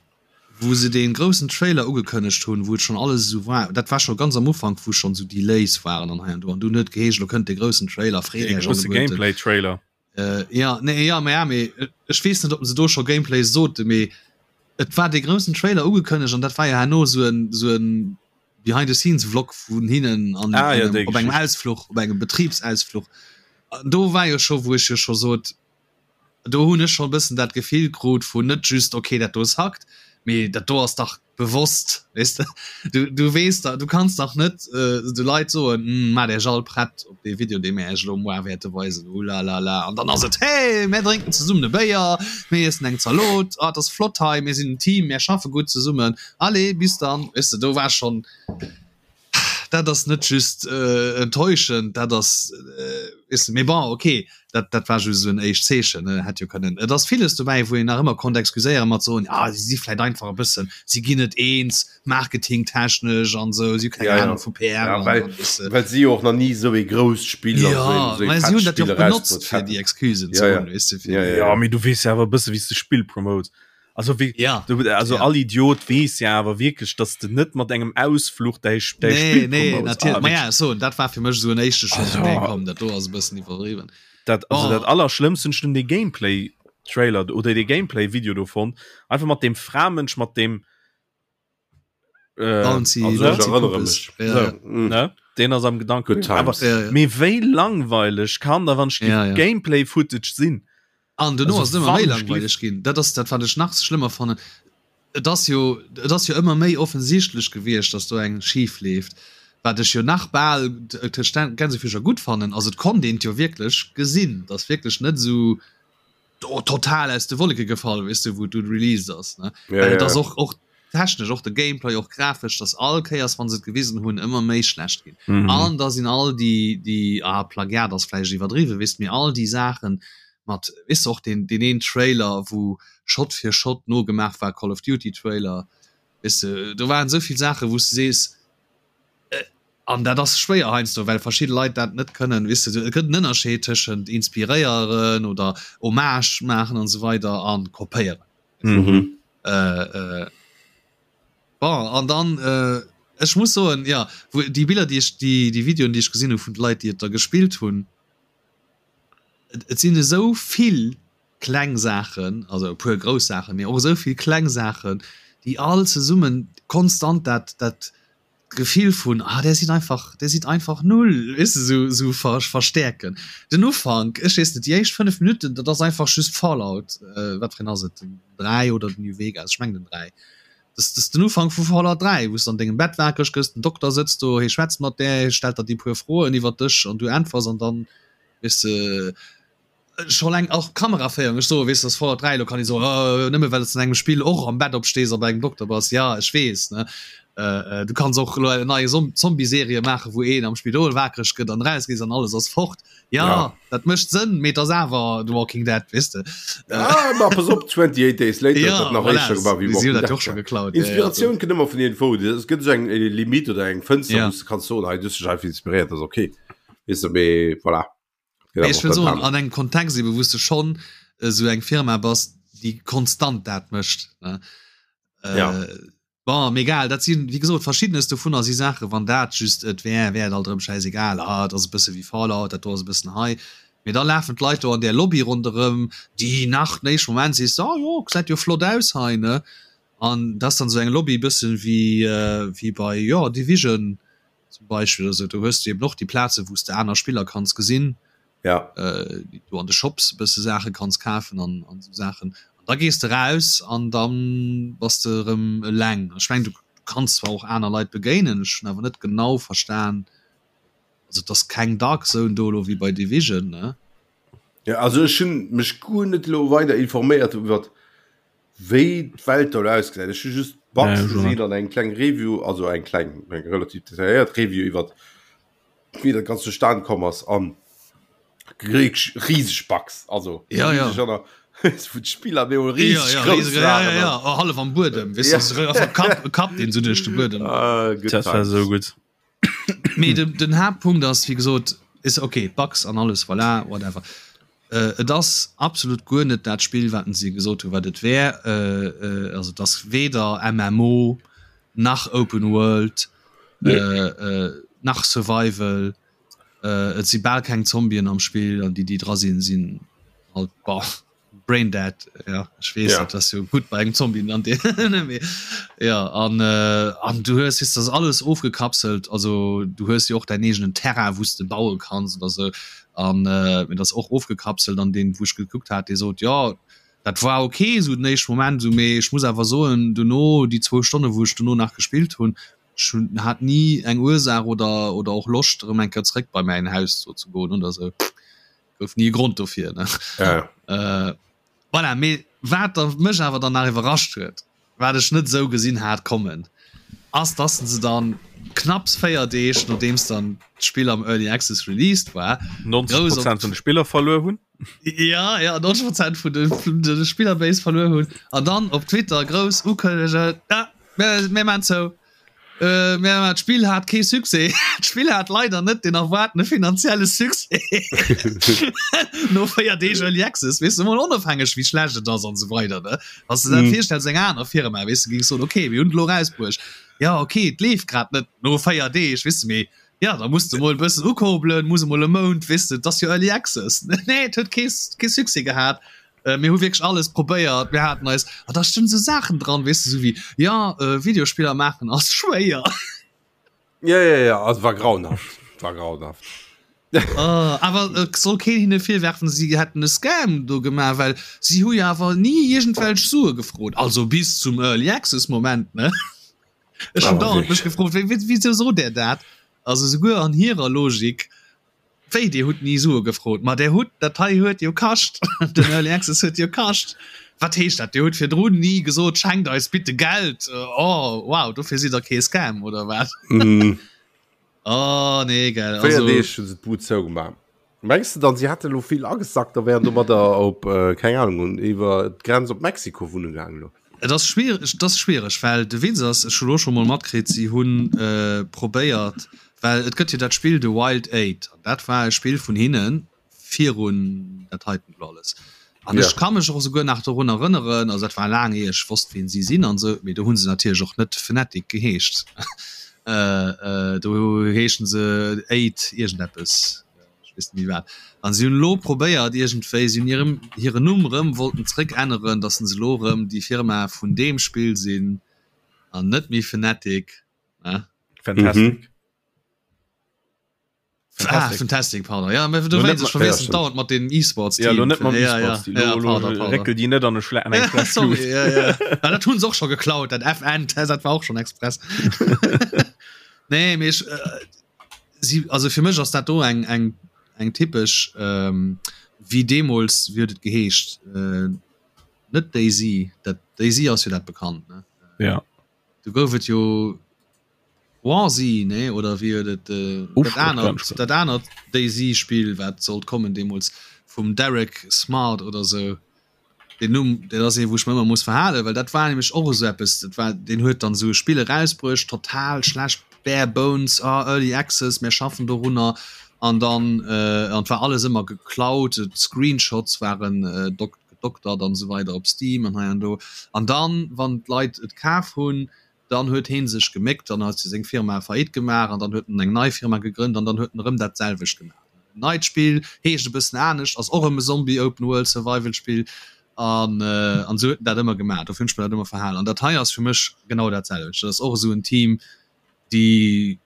Speaker 3: Wou se dee groussen Trailer ugekënnegt hunn, wou et schonn alles esou war, dat war scho ganz am Ufank, wou schonn esou Delays waren an hei an do, an dunn huet et geheescht, elo kënnt dee groussen Trailer, freet
Speaker 2: Dee
Speaker 3: Iech
Speaker 2: grousse
Speaker 3: alleguerten.
Speaker 2: Gameplay-Trailer.
Speaker 3: Jo, nee, jo, mä ja, mee ech weess net, ob se do scho Gameplay soten, mee et war dee groussen Trailer ugekënnegt an dat war jo herno esou en, esou en Behind-the-scenes-Vlog vun hinnen an
Speaker 2: Ah jo,
Speaker 3: engem,
Speaker 2: déi
Speaker 3: op engem
Speaker 2: Geschicht.
Speaker 3: Ausfluch, op engem Betribsausfluch. An do war jo scho, wou ech jo scho sot, do hunn ech schonn e bëssen dat Gefill krut vun net just okay dat do ass hackt, mee dat do ass dach bewosst, weess de. Du, du weess dach, du kanns dach net de Leit soen, hm, maacht Iech all prett op dee Video, dee mir Iech elo moar wäerte weisen, ulalala, an dann ass et, hey, mär drénken zesummen e Béier, mir iessen eng Zalot, ah, et ass flott hei, mir sinn en Team, mär schaffe gutt zesummen, allez, bis dann, weess de. Do war schonn. Dat ass net just enttäuschend, dat ass, weess de, mee bon, okay, dat, dat war just esou en éischt Zeechen, ne, hätt jo kënnen, et ass villes dobäi, wou een nach ëmmer konnt excuséieren mat soen, ah, si si vläicht einfach e bëssen, si ginn net eens, marketingtechnesch an esou, si hu keng
Speaker 1: Ja, ja.
Speaker 3: Ahnung vu PR
Speaker 1: Ja,
Speaker 3: an,
Speaker 1: well,
Speaker 3: an, weess de.
Speaker 1: well si jo och nach ni esou ee grousst Spill an
Speaker 3: Ja,
Speaker 1: esou een, esou ee
Speaker 3: mä si
Speaker 1: fett
Speaker 3: hunn dat jo
Speaker 1: Spill
Speaker 3: och benotzt,
Speaker 1: erausbruet
Speaker 3: fir
Speaker 1: haten.
Speaker 3: déi Excusen ze
Speaker 1: Ja, ja.
Speaker 3: hunn, weess de, fir
Speaker 1: Ja, ja,
Speaker 2: Ja,
Speaker 1: ja.
Speaker 2: mee du weess jo awer e bësse wéi s de Spill promotes. Also wie,
Speaker 3: ja,
Speaker 2: du, also
Speaker 3: ja.
Speaker 2: all Idiot wees ja awer wierklech, dass du net mat engem Ausfluch däi
Speaker 3: däi nee, Spiel nee, natierlech. Ah, ja, so, dat war fir mech so en éischte Schock. Also, nee, komm, dat do ass e bëssen iwwerdriwwen.
Speaker 2: Dat, also
Speaker 3: oh.
Speaker 2: dat allerschlëmmst hunn ech den Gameplay Trailer oder de Gameplay Video do fonnt. Einfach mat dem Framënsch mat dem
Speaker 3: Äh, Bouncy,
Speaker 1: also,
Speaker 3: Bouncy
Speaker 1: ich erinnere
Speaker 3: Puppes.
Speaker 1: mich.
Speaker 3: Ja,
Speaker 2: so,
Speaker 3: ja.
Speaker 1: Mm.
Speaker 2: ne? Den ass am Gedanken.
Speaker 1: Good times.
Speaker 2: Aber,
Speaker 3: Ja, ja.
Speaker 2: Mee wéi langweileg kann da wann ich
Speaker 3: Ja, ja.
Speaker 2: Gameplay Footage sinn?
Speaker 3: An duerno
Speaker 2: Also
Speaker 3: ass et ëmmer méi
Speaker 2: wann
Speaker 3: langweileg ginn. Dat ass dat, wat ech nach schlëmmer fannen. Et ass jo, et ass jo ëmmer méi offensichtlech gewiescht, datt do eng schif leeft. Wat ech jo nach bal tëscht Gänsefüßcher gutt fannen, ass et konnt een et jo wierklech gesinn, et ass wierklech net esou total aus de Wolleke gefall, weess de, wou et dunn released ass, ne.
Speaker 1: Ja,
Speaker 3: Well et
Speaker 1: ja.
Speaker 3: ass och, och technesch, och de Gameplay, och grafesch, datt all Kéiers, wa se et gewisen hunn, ëmmer méi schlecht ginn.
Speaker 2: Mhm.
Speaker 3: An da sinn all déi, déi, ah, Plagiat ass vläicht iwwerdriwwen, weess de, mee all déi Saachen mat, weess de, och deen, deen een Trailer, wou Shot fir Shot nogemaach war, Call of Duty Trailer, weess de, do waren esou vill Saachen, wou s de sees, an dat ass schwéier heiansdo, well verschidde Leit dat net kënnen, weess de, et gëtt en Ënnerscheed tëschent inspiréieren oder Hommage maachen an esou weider a kopéieren.
Speaker 1: Mhm.
Speaker 3: Äh, äh, bon, an dann, äh, ech muss soen, ja, wou déi Biller, déi ech, déi, déi Videoen, déi ech gesinn hu vun de Leit, déi et da gespillt hunn. Et sinn esou vill kleng Saachen, also e puer grouss Saachen, mee och esou vill kleng Saachen, déi all zesummen konstant dat, dat Gefill vun, ah, där sidd einfach, där sidd einfach null, weess de, esou, esou ver, verstäerken. Den Ufank, ech weess net, déi éischt 5 Minutten, dat ass einfach just Fallout, wat fir een ass et, den 3 oder den New Vegas, ech mengen den 3. Dat ass den Ufank vu Fallout 3, wou s de an dengem Bett wakereg gëss, den Dokter sëtzt do, hie schwätzt mat där, hie stellt der déi puer Froen iwwer dech an du äntwers an dann, weess de, Scho leng och Kameraféierung, ech soe weess dass Fallout 3 lo kann ee soen oh nëmme well s an engem Spill och am Bett opstees a bei engem Dokter bass, ja ech weess ne du kanns och elo eng nei Zombie-Serie maache wou een am Spidol wakereg gëtt an eraus gees an alles ass fort, ja dat mécht Sënn mee et ass awer The Walking Dead weess de.
Speaker 1: Ah ma pass op 28 Days Later
Speaker 3: huet dat nach éischter gemaach wéi
Speaker 1: Walking Dead. Inspiratioun kënnt ëmmer vun iergendwou, et gëtt esou eng Limite oder eng Fënster wou s de kanns soen hei du hues dech einfach inspiréiert, ass ok weess de mee voilà.
Speaker 3: Mee ech wëll soen, an engem Kontext ebe wou s de schonn esou eng Firma bass, déi konstant dat mécht, ne?
Speaker 1: Ja.
Speaker 3: Bon, mee egal, dat sinn, wéi gesot, verschiddenes dovunner si Saachen, wann dat just et wär, wär et alt erëm schäisegal, ah, et ass e bësse wéi Fallout, dat do ass e bëssen hei. Mee da lafen d'Leit do an där Lobby ronderëm, déi nach den éischte Moment sees de, ah jo, gesäit jo flott aus hei, ne? An dat ass dann esou eng Lobby e bëssen wéi, wéi bei, jo, Division, zum Beispill oder sou, do hues du eben och déi Plaze wou s de aner Spiller kanns gesinn,
Speaker 1: ja.
Speaker 3: äh, du an de Shops e bësse Saache kanns kafen an, an sou Saachen. An da gees de raus an dann bass de erëm eleng. Ech meng du kanns zwar och aner Leit begéinen, ech hunn awer net genau verstan, also et ass keng Dark Zone do elo wéi bei Division, ne?
Speaker 1: Ja, also ech hunn mech guer net elo weider informéiert iwwert wéi d'Welt do ausgesäit. Ech hu just Bugs gesinn an eng kleng Review, also eng kleng, eng relativ detailléiert Review iwwer wéi dat ganz zustan komm ass an riseg Bugs, also
Speaker 3: ja, ja.
Speaker 1: Vu d'Spiller mir
Speaker 3: rieseg ja, ja, rieseg, ja, ja, ja. Oh, hallef am Buedem, ja. Kapp, Kapp den so duerch de Buedem.
Speaker 2: Ah, dat war so gutt.
Speaker 3: Mee den, den Haaptpunkt ass, wéi gesot, is okay, Bugs an alles, voilà, whatever. Äh, et ass absolut guer net dat Spill, wat si gesot hu wat et wär. Äh, äh, also et ass weder MMO nach Open World nee. äh, äh, nach Survival. Äh, et si bal keng Zombien am Spill an déi déi dra sinn, sinn halt bah. Brain dead ja ech weess ja. dat jo gut bei engem Zombie an ja an äh, an du hues ist das alles ofgekapselt also du hues jo och dein eegenen Terrain wous de baue kanns oder sou an äh, mir das och ofgekapselt an den wou ech gekuckt hat dee sot ja dat war okay sou den éischte Moment sou mee ech muss awer soen duerno déi zwou Stonne wou ech duerno nach gespillt hunn ech hunn hat ni eng Ursaach oder oder och Loscht erëm eng Kéier zréck bei mäin Haus do ze goen oder sou. Gouf ni e Grond dofir ne.
Speaker 1: Ja.
Speaker 3: Äh, voilà, mee wat da mech awer dann nach iwwerrascht huet, wat ech net esou gesinn hat kommen, ass dass se dann knapps 4 Deeg nodeems dann d'Spill am Early Access released war,
Speaker 2: 90 grouss op Prozent vun de Spiller verluer hunn.
Speaker 3: Ja, ja, 90 Prozent vun de, vun de Spillerbase verluer hunn an dann op Twitter grouss ukënnegen, ja, mir, mir maan zou. Äh, mä d'Spill hat kee Succès. D'Spill hat leider net den erwaartene finanzielle Succès. No 4 Deeg Early Access, weess de, mol onofhängeg wéi schlecht et ass an esou weider, ne? Wann s de dat mm. virstells, eng aner Firma, weess de, géings soen, okay, mir hunn et elo rausbruecht. Ja, okay, et leeft grad net no 4 Deeg, weess de, mee ja, da muss de mol e bëssen ukurbelen, muss emol e Mount, weess de, et ass jo Early Access. Nee, et huet kee, kee Succès gehat. Äh, mir hu wierklech alles probéiert, mir haten eis, a da stinn sou Saachen dran, weess de, sou wéi, ja, äh, Videospiller maachen ass schwéier.
Speaker 1: Ja, ja, ja, also war grauenhaft, war grauenhaft.
Speaker 3: Uh, awer et soll keen hinne virwerfen, si hätten e Scam do gemaach, well si hu jo awer ni iergendwelch Sue gefrot, also bis zum Early Access Moment, ne? Ech hunn dauernd mech gefrot, wéi, wéi, wéi sot där dat? Also souguer an hirer Logik Wéi, Dir hutt ni Sue gefrot? Ma der hutt, dat hei huet jo kascht, den Early Access huet jo kascht. Wat heescht dat, Dir hutt virdrun ni gesot, schenkt eis bitte Geld? Oh, wow, dofir sidd der kee Scam, oder wat? Oh, nee, gell,
Speaker 1: also. 4 Deeg hu se d'Bud zougemaach. Mengs de dann, si hätte lo vill agesackt a wären domadder op, keng Ahnung, iwwer d'Grenz op Mexiko wunne gaangen
Speaker 3: elo? Et ass schwiereg, et ass schwiereg, well de Witz ass, ech hu lo scho mol matkritt, si hu probéiert, well et gëtt jo dat Spill The Wild Eight an dat war e Spill vun hinne virun dat heiten elo alles. An ech ka mech och esouguer nach dorun erënneren, also dat war laang ier ech wosst wien si sinn an esou, mee do hu se natierlech och net Fnatic geheescht, do heeschen se Eight iergendeppes. weess net méi wat. An si hunn elo probéiert iergendwéi, si hunn hirem hiren Numm erëm wollten zréck änneren, datt se elo erëm déi Firma vun deem Spill sinn an net méi Fnatic, ne?
Speaker 2: Fantastic. Mhm.
Speaker 3: Ah, Fantastic, pardon. Ja, du weißt, ich verwechsel ja, dauernd mat den E-Sports.
Speaker 2: Ja, net mam ja, ja, ja, pardon, pardon. Reckel die net an e Schle
Speaker 3: ja, sorry, ja, ja. ja, dat hunn se och schon geklaut, dat FN, dat war och schon express. nee, mee ich, äh, sie, also fir mech ass dat do eng, eng, eng typesch, ähm, wie deemools, wie huet et geheescht? Äh, net DayZ, dat DayZ ass jo dat bekannt, ne?
Speaker 2: Ja.
Speaker 3: Du gouf et jo Warzy, nee oder wéi huet et dat anert dat anert DayZ Spill wat sollt kommen deemools vum Derek Smart oder sou. Den Numm dat ass ee wou ech mer ëmmer muss verhalen, well dat war nämlech och esou eppes, dat war deen huet dann esou e Spill erausbruecht, total schlecht, bare bones, ah early access, mär schaffen dorunner an dann an et war alles ëmmer geklaut, d'Screenshots waren gedoktert an esou weider op Steam an hei an do an dann wann d'Leit et kaf hunn, Dann huet heen sech geméckt, dann huet seng Firma Faillite gemaach an dann huet en eng nei Firma gegrënnt an dann huet en erëm dat selwecht gemaach. En neit Spill, heescht e bëssen anescht, ass och erëm e Zombie Open World Survival Spill an an esou huet en dat ëmmer gemaach. Dofir hunn ech mer dat ëmmer verhalen an dat hei ass fir mech genau dat selwecht. Dat ass och esou en Team, déi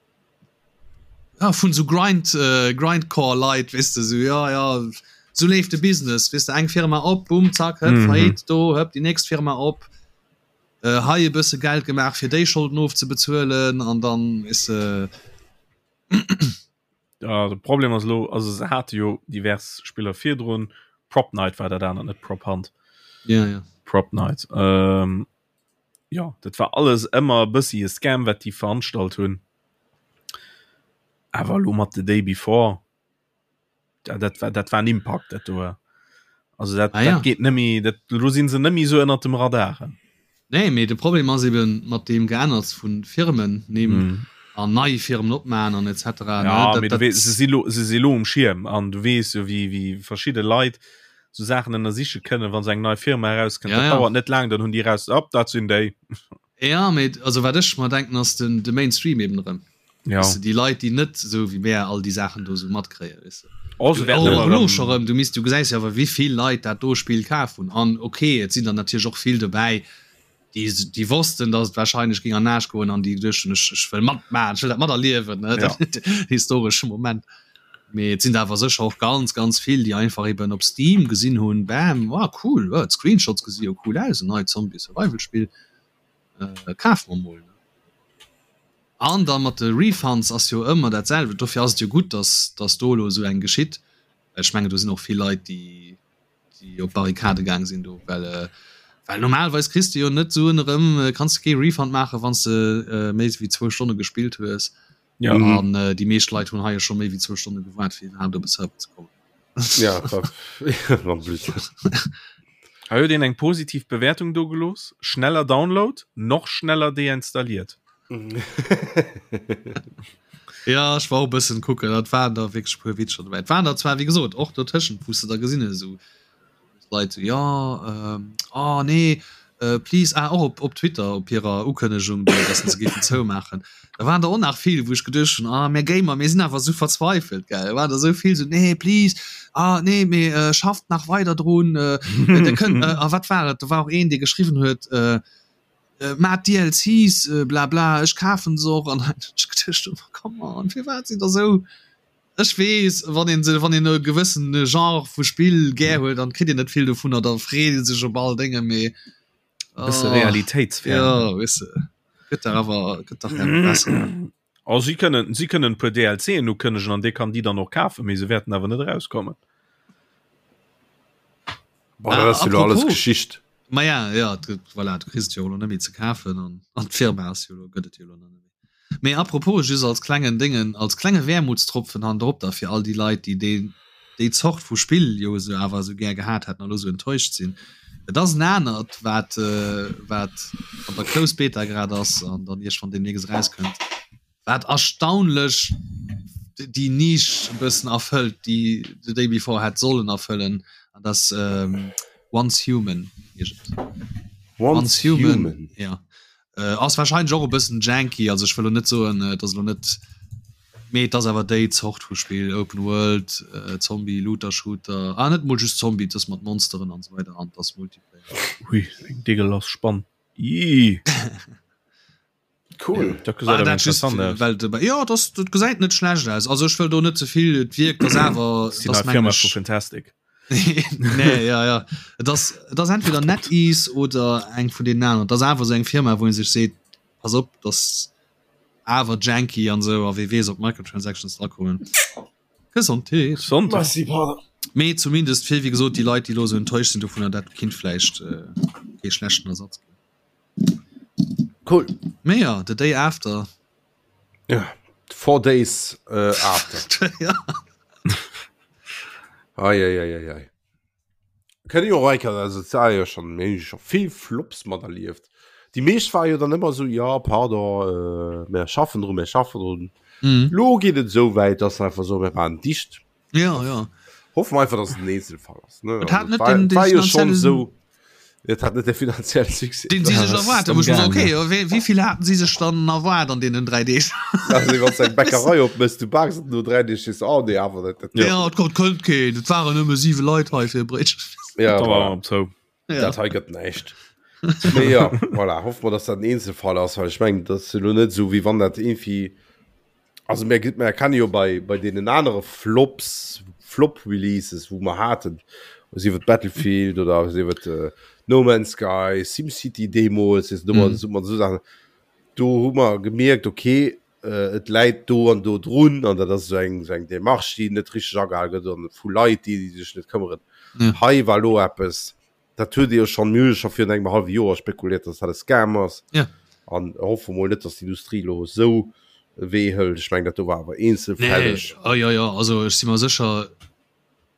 Speaker 3: ja vun esou Grind Grindcore Leit, weess de, esou jo jo esou leeft de Business, weess de, eng Firma op, bumm, zack, hëpp, Faillite, do, hëpp, déi nächst Firma op. Hei e bësse Geld gemaach fir déi Scholden ofzebezuelen an dann is se.
Speaker 2: Ja, de Problem ass elo, also se hate jo divers Spiller virdrun, Prop Night war dat anert, net Prop Hunt.
Speaker 3: Ja, ja.
Speaker 2: Prop Night. Ähm, ja, dat war alles ëmmer e bëssi e Scam, wat déi veranstalt hunn. Awer elo mat The Day Before. Ja, dat war dat war en Impact dat do. Also dat, ah, ja. dat geht nëmmi dat lo sinn se nëmmi so ënner dem Radar.
Speaker 3: Nee, mee de Problem ass eben mat deem Geänners vun Firmen nehm mm. an nei Firmen opmaen an etc.
Speaker 2: Ja, ne, dat, dat, se si lo, se si lo um Schierm an du wees jo wie wie verschidde Leit so Saachen ënnersiche kënnen, wann se eng nei Firma erauskënnt. Ja, ja. dauert net lang, dann hunn déi raus op dat sinn déi.
Speaker 3: Ja, mee also wat ech mer denken ass den de Mainstream eben erëm.
Speaker 2: Ja.
Speaker 3: Weißt du, déi Leit déi net esou wéi mär all déi Saachen do esou matkréien, weess de.
Speaker 2: Oh, se wäerten
Speaker 3: ëmmer erëm. Scho rëm, du misst, du gesäis jo awer wéi vill Leit dat do Spill kaf hunn an ok, et sinn der natierlech och vill dobäi, déi déi wossten, datt et warscheinlech géing an den Aarsch goen an déi geduecht hunn, ech ech wëll matmaachen, ech wëll dat materliewen, ne,
Speaker 2: Ja.
Speaker 3: den historesche Moment. Mee et sinn der awer sécher och ganz, ganz vill, déi einfach eben op Steam gesinn hunn, bam, ah cool, oh d'Screenshots gesi jo cool aus, en neit Zombie-Survival-Spill, kafe mer mol. An da mat de Refunds ass jo ëmmer dat selwecht. Dofir ass et jo gutt, datt datt do elo esou eng geschitt. Well ech mengen, do sinn och vill Leit, déi déi op d'Barrikade gaang sinn do, well well normalerweis kriss de jo net Suen erëm, kanns de kee Refund maachen, wann s de méi wéi zwou Stonne gespillt hues.
Speaker 2: Ja.
Speaker 3: An déi meescht Leit hunn hei jo scho méi wéi zwou Stonne gewaart, fir iwwerhaapt op e Server ze kommen.
Speaker 1: Ja, en plus.
Speaker 2: Hei huet een eng positiv Bewertung do gelooss, Schneller Download, noch schneller deinstalliert.
Speaker 3: Ja, ech war och e bëssen kucken, dat waren der wierklech e puer Witzer dobäi. Et waren der zwar, wéi gesot, och dotëschent, wou s de da gesinn hues, esou Leit esou, jo, oh nee, please, ah, och op, op Twitter, op hirer Ukënnegung do, dass se géifen zoumaachen, da waren der och nach vill, wou ech geduecht hunn, ah, mir Gamer, mir sinn awer esou verzweifelt, gell, da waren der esou vill esou, nee, please, ah, nee, mee schafft nach weider drun, der kënnt, a wat war et, do war och een, dee geschriwwen huet, Maat DLCs, bla bla, ech kafen se och, an dann hunn ech geduecht, oh come on, firwat sidd der esou, ech weess, wann een se, wann een e gewëssen Genre vu Spill gär huet, dann kritt een net vill dovunner, da freet ee sech op all Dénge, mee
Speaker 2: E bësse realitéitsfern.
Speaker 3: Jo, weess de, gëtt dach awer, gëtt dach awer besser.
Speaker 2: Oh, si kënnen, si kënnen e puer DLCen ukënnegen an dee kann déi dann och kafen, mee se wäerten awer net erauskommen.
Speaker 1: Boah, dat ass jo lo alles Geschicht.
Speaker 3: Ma ja, ja, voilà, du kriss et jo elo net méi ze kafen an an d'Firma ass jo elo, gëtt et jo elo net méi. Mee apropos, just als klengen Déngen, als klenge Wermutstropfen hannendrop da fir all déi Leit, déi deen, déi Zort vu Spill jo esou awer esou gär gehat hätten an elo esou enttäuscht sinn. Et ass en anert, wat wat an der Closed Beta grad ass an dann iergendwann deemnächst erauskënnt, wat erstaunlech déi Nisch e bëssen erfëllt, déi The Day Before hätt sollen erfëllen, an dat ass Once Human heescht et.
Speaker 1: Once Human?
Speaker 3: Ja. Ass warscheinlech och e bëssen janky, also ech wëll elo net soen, et ass elo net. Mee et ass awer déi Zort vu Spill, Open World, Zombie, Looter Shooter, ah net mol just Zombie, et ass mat Monsteren an esou weider an et ass Multiplayer.
Speaker 2: Hui, eng deegelass Spann. Ii.
Speaker 1: Cool.
Speaker 2: Dat gesäit awer interessant aus.
Speaker 3: Well de, jo, dat, dat gesäit net schlecht aus. Also ech wëll do net ze vill, et wierkt, ass awer,
Speaker 2: Ass déi nei Firma vu Fantastic.
Speaker 3: Nee, ja, ja. Et ass, et ass entweder NetEase oder eng vun deenen aneren. Et ass awer esou eng Firma, wou ee sech seet, pass op, dat ass awer janky an esou a wee weess, ob Microtransactions drakommen. Gesondheet.
Speaker 2: Gesondheet.
Speaker 1: Merci, pardon.
Speaker 3: Mee zumindest fir, wéi gesot, déi Leit, déi elo esou enttäuscht sinn dovunner, dat kinnt vläicht kee schlechten Ersatz ginn.
Speaker 1: Cool.
Speaker 3: Mee ja, The Day After.
Speaker 1: Ja, four days äh, after.
Speaker 3: ja.
Speaker 1: Ei, ei, ei, ei, ei. Kënne jo Reiker, also es war jo schon, mir hu jo schon vill Flops mat erlieft. Déi meescht war jo dann ëmmer sou, ja, pardon, äh, mir schaffen drun, mir schaffen drun.
Speaker 3: Mhm.
Speaker 1: Lo geet et sou wäit, dass se einfach soen, mir waren dicht.
Speaker 3: Ja, ja.
Speaker 1: Hoffen wir einfach, dass es ein Einzelfall ist. Ne?
Speaker 3: Et hat
Speaker 1: Also,
Speaker 3: net
Speaker 1: war,
Speaker 3: den- den
Speaker 1: war jo schon
Speaker 3: finanziellen-
Speaker 1: so. Et hat net de finanziellen Succès.
Speaker 3: Den sie sech
Speaker 2: Das
Speaker 3: erwaart
Speaker 2: ist
Speaker 3: wo ich mir so,
Speaker 2: am
Speaker 3: okay, ja, wéi, wéi vill haten sie sech dann erwaart an deenen 3 Deeg?
Speaker 1: Also, wann du eng Bäckerei opmëss, du baaks et no 3 Deeg, sees du, oh nee, awer dat, dat,
Speaker 3: Ja, ja et kommt kënnt keen, et waren nëmme 7 Leit hei fir e Bréitchen.
Speaker 1: ja,
Speaker 2: Da war
Speaker 1: voilà.
Speaker 2: op zou.
Speaker 3: Ja.
Speaker 1: Dat hei gëtt näischt. Mee ja, voilà, hoffe mer, dass dat en Eenzelfall ass, well ech mengen, dat ass elo net esou, wéi wann dat irgendwie Also mir, mir erkenne jo bei, bei deenen anere Flops, Flop-Releases, wou mer haten, sief et Battlefield oder sief et äh, No Man's Sky, SimCity deemools, mm. mhm. so, so Sachen, do hu mer gemierkt, okay, äh, et läit do an do drun an dat ass so eng, so eng Demarche, déi net richteg agehal gëtt an vu Leit, déi, déi sech net këmmeren.
Speaker 3: Ja.
Speaker 1: Hei war lo eppes, Dat huet Dir jo schonn, mir hu jo scho virun engem hallwe Joer spekuliert, dass dat e Scam ass.
Speaker 3: Ja.
Speaker 1: An hoffe mol net, dass d'Industrie elo esou e Wee hëlt. Ech mengen, dat do war awer eenzelfälleg.
Speaker 3: Nee, oh, jo, jo, also ech si mer sécher,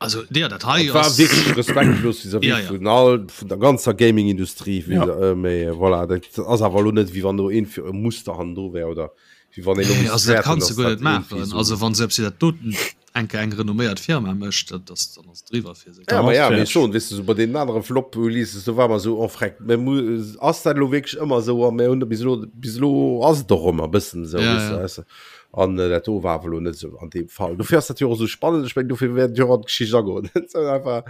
Speaker 3: also jo, dat hei
Speaker 1: Dat war
Speaker 3: ass.
Speaker 1: wierklech respektlos vis-à-vis
Speaker 3: Ja, ja.
Speaker 1: vun all, vun der ganzer Gaming-Industrie.
Speaker 2: Ja.
Speaker 1: Äh, mee voilà, dat ass awer elo net, wéi wann do een fir e Muster hannendru wär oder wéi wann een elo
Speaker 3: Nee,
Speaker 1: misst
Speaker 3: also dat
Speaker 1: fäerten,
Speaker 3: kanns du
Speaker 1: dass
Speaker 3: guer
Speaker 1: dat
Speaker 3: net
Speaker 1: irgendwie
Speaker 3: maachen.
Speaker 1: esou.
Speaker 3: Also wann selbst si dat doten enke eng renomméiert Firma mécht, dat ass, dann ass et driwwer fir se.
Speaker 1: Ja, ma ja, mee
Speaker 2: Fertig.
Speaker 1: schon, weess du, so bei deenen anere Flop-Releases, do war mer so, oh freck, mir mu ass dat elo wierklech ëmmer esou? A mir hunn bis elo, bis elo ass et och ëmmer e bëssen esou,
Speaker 3: Ja,
Speaker 1: weess du,
Speaker 3: ja.
Speaker 1: weess du. An äh, dat do war awer elo net esou an deem Fall. Dofir ass dat jo och esou spannend, ech meng, dofir wäert et jo och an d'Geschicht agoen. Dat ass einfach,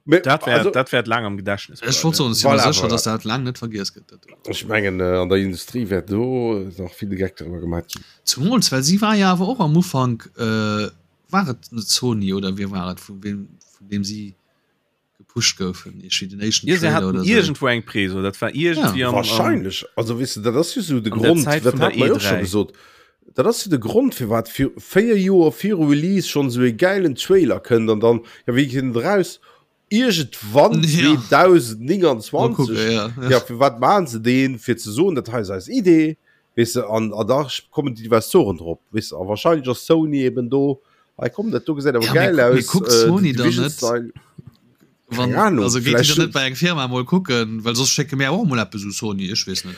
Speaker 1: mee,
Speaker 2: Dat wäert,
Speaker 1: also,
Speaker 2: dat wäert laang am Gedächtnis
Speaker 3: Ech wollt
Speaker 2: bleiwen.
Speaker 3: soen, ech si mer
Speaker 1: Voilà,
Speaker 3: sécher,
Speaker 1: voilà.
Speaker 3: dass dat laang net vergiess gëtt, dat do.
Speaker 1: Ech mengen, äh, an der Industrie wäert do nach vill de Geck driwwer gemaach ginn.
Speaker 3: Zumools, well si war jo awer och am Ufank, äh, war et net Sony oder wie war et, vu wem, vun deem si gepusht goufen, iergendwéi den éischten
Speaker 2: Ja, se
Speaker 3: Trailer
Speaker 2: haten
Speaker 3: oder sou.
Speaker 2: iergendwou eng Preso, dat war iergendwéi
Speaker 3: Ja.
Speaker 2: am, am,
Speaker 1: Wahrscheinlech, also weess de, dat ass jo sou de
Speaker 2: an der
Speaker 1: Grond,
Speaker 2: Zäit
Speaker 1: dat
Speaker 2: vun der
Speaker 1: hat mer jo och scho
Speaker 2: E3.
Speaker 1: gesot, dat ass jo de Grond firwat fir 4 Joer viru Release schonn esou e gäilen Trailer kënnt an dann, ja wéi kënnt en eraus? Iergendwann
Speaker 3: Ja.
Speaker 1: 2029.
Speaker 3: Mal kucken, ja, ja.
Speaker 1: Ja, firwat maachen se deen? Fir ze soen, dat hei ass eis Idee, weess de, an, an da kommen déi Investoren drop, weess de, a wahrscheinlech ass Sony eben do, hei komm, dat do gesäit awer
Speaker 3: Ja, mee
Speaker 1: gäil
Speaker 3: gu- mee
Speaker 1: aus,
Speaker 3: kuckt
Speaker 1: äh,
Speaker 3: Sony
Speaker 1: The
Speaker 3: dann
Speaker 1: Division
Speaker 3: net?
Speaker 1: Style.
Speaker 3: Wann,
Speaker 1: Keng Ahnung,
Speaker 3: also geet déi
Speaker 1: vläicht
Speaker 3: dann net bei eng Firma mol kucken, well soss schécke mir och mol eppes u Sony, ech weess net.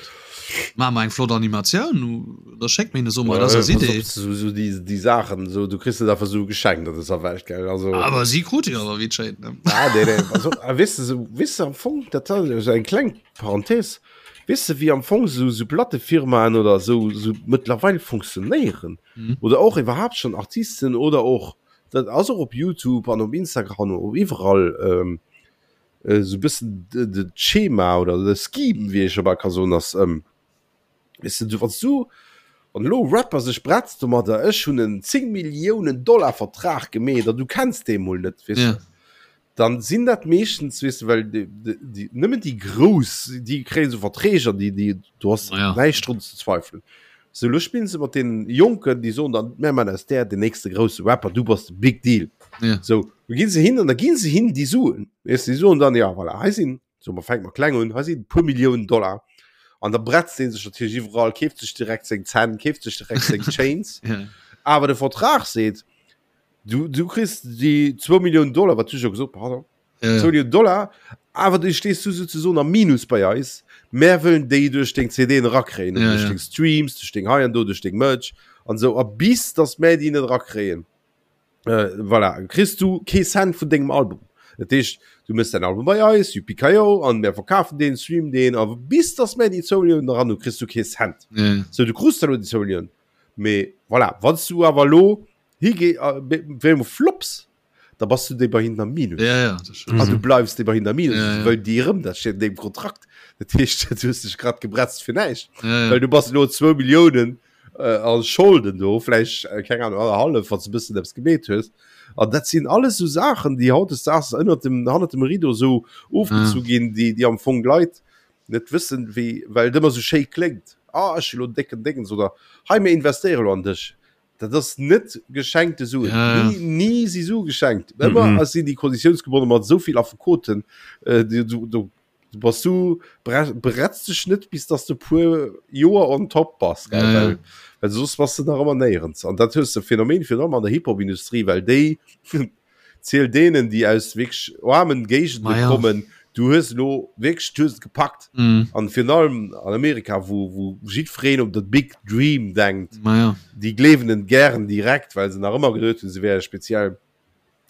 Speaker 3: Maache mer eng flott Animatioun, da schécke mir hinne soe mer, dat ass eis
Speaker 1: Pass op,
Speaker 3: Idee.
Speaker 1: so, so déi, déi Saachen, so, du kriss net einfach sou geschenkt an dëser Welt, gell, also.
Speaker 3: Awer si krute jo awer wéi et schéint, ne?
Speaker 1: Ah, nee, nee, also, a weess de, sou, weess de, am Fong, dat ass esou eng kleng Parenthèse, weess de, wéi am Fong sou, sou Plattefirmaen oder sou, sou mëttlerweil funktionéieren,
Speaker 3: Mhm.
Speaker 1: oder och iwwerhaapt schonn Artisten oder och, dat ass och op YouTube an op Instagram an op iwwerall, ähm, esou e bëssen de, de d'Schema oder de Scheme, wéi ee scho bal ka soen, ass, ähm, weess de, du, wann s du, wann elo e Rapper sech bretzt domadder, ech hunn en 10 Milliounen Dollar Vertrag gemeet an du kenns dee mol net, weess
Speaker 3: Ja.
Speaker 1: de, dann sinn dat meeschtens, weess de, well déi, déi, nëmmen déi Grouss, déi kréien esou Verträg an déi, déi, do ass
Speaker 3: Ja.
Speaker 1: näischt drun ze zweifelen. Sou, elo spillen se mat deenen Jonken, déi soen dann, mär man aus där den nächste grousse Rapper, du bass de Big Deal.
Speaker 3: Ja.
Speaker 1: Sou, do ginn se hin an da ginn se hin déi Suen, weess de, déi soen dann, ja voilà, hei sinn, so mer fänke mer kleng un, hei sinn e puer Milliounen Dollar. An da bretzt dee sech natierlech iwwerall, keeft sech direkt seng Zänn, keeft sech direkt seng Chains.
Speaker 3: Ja.
Speaker 1: Awer de Vertrag seet, du, du kriss déi zwou Milliounen Dollar, wat du scho gesot, pardon,
Speaker 3: Ja, ja.
Speaker 1: 2 Millionen Dollar, awer du stees du souzesoen am Minus bei eis. Mär wëllen déi duerch deng CDen erakréien,
Speaker 3: Ja,
Speaker 1: duerch
Speaker 3: ja.
Speaker 1: deng Streams, duerch deng hei an do, duerch deng Merch an esou. A bis dass mär déi net erakréien, äh, voilà, kriss du kee Cent vun dengem Album. Dat heescht, du mëss däin Album bei eis, yippie-ki-yo, an mär verkafen deen, streamen deen, a bis dass mär déi 2 Milliounen eran hunn, kriss du kee Cent.
Speaker 3: Ja, ja.
Speaker 1: Sou, du krus dann elo déi 2 Milliounen, mee. Voilà, wann s du awer elo higee wéi emol flops, da bass du déi bei hinnen am Minus.
Speaker 3: Ja, ja,
Speaker 1: das stimmt. An du bleifs déi bei hinnen am Minus, ja, ja. well déi erëm, dat steet an deem Kontrakt. Dat heescht, du hues dech grad gebretzt fir näischt.
Speaker 3: Ja, ja.
Speaker 1: Well du bass elo zwou Milliounen äh, a Scholden do, vläicht, äh, keng Ahnung, annerhallef, wann s du e bëssen eppes gemeet hues. An dat sinn alles sou Saachen, déi hautdesdaags ënnert dem, hannert dem Rideau sou ofgezu
Speaker 3: Ja.
Speaker 1: ginn, déi, déi am Fong d'Leit net wëssen, wéi, well et ëmmer sou schéi kléngt, Ah, ech hu lo en décken Déngens oder hei, mir investéiere lo an dech. Dat ass net geschenkte Suen.
Speaker 3: Ja, ja.
Speaker 1: Ni, ni si Sue geschenkt. Ëmmer
Speaker 2: Mhm.
Speaker 1: sinn déi konditiounsgebonne mat esou vill Affekoten. Äh, du, du, du, du bass du bre bretz dech net, bis dass du puer Joer on top bass, gell?
Speaker 3: Ja, ja.
Speaker 1: Well, well soss bass du nach ëmmer néierens. An dat hues de Phänomen virun allem an der Hip-Hop-Industrie, well déi Ziel deenen, déi aus wierklech aarmen Géigende
Speaker 3: Ma ja.
Speaker 1: kommen, du hues elo wierklech, du hues et gepackt.
Speaker 3: Mm.
Speaker 1: An virun allem an Amerika, wou, wou jiddwereen op de Big Dream denkt,
Speaker 3: Ma ja.
Speaker 1: déi gleewen en gären direkt, well se nach ëmmer geduet hunn, se wäre speziell.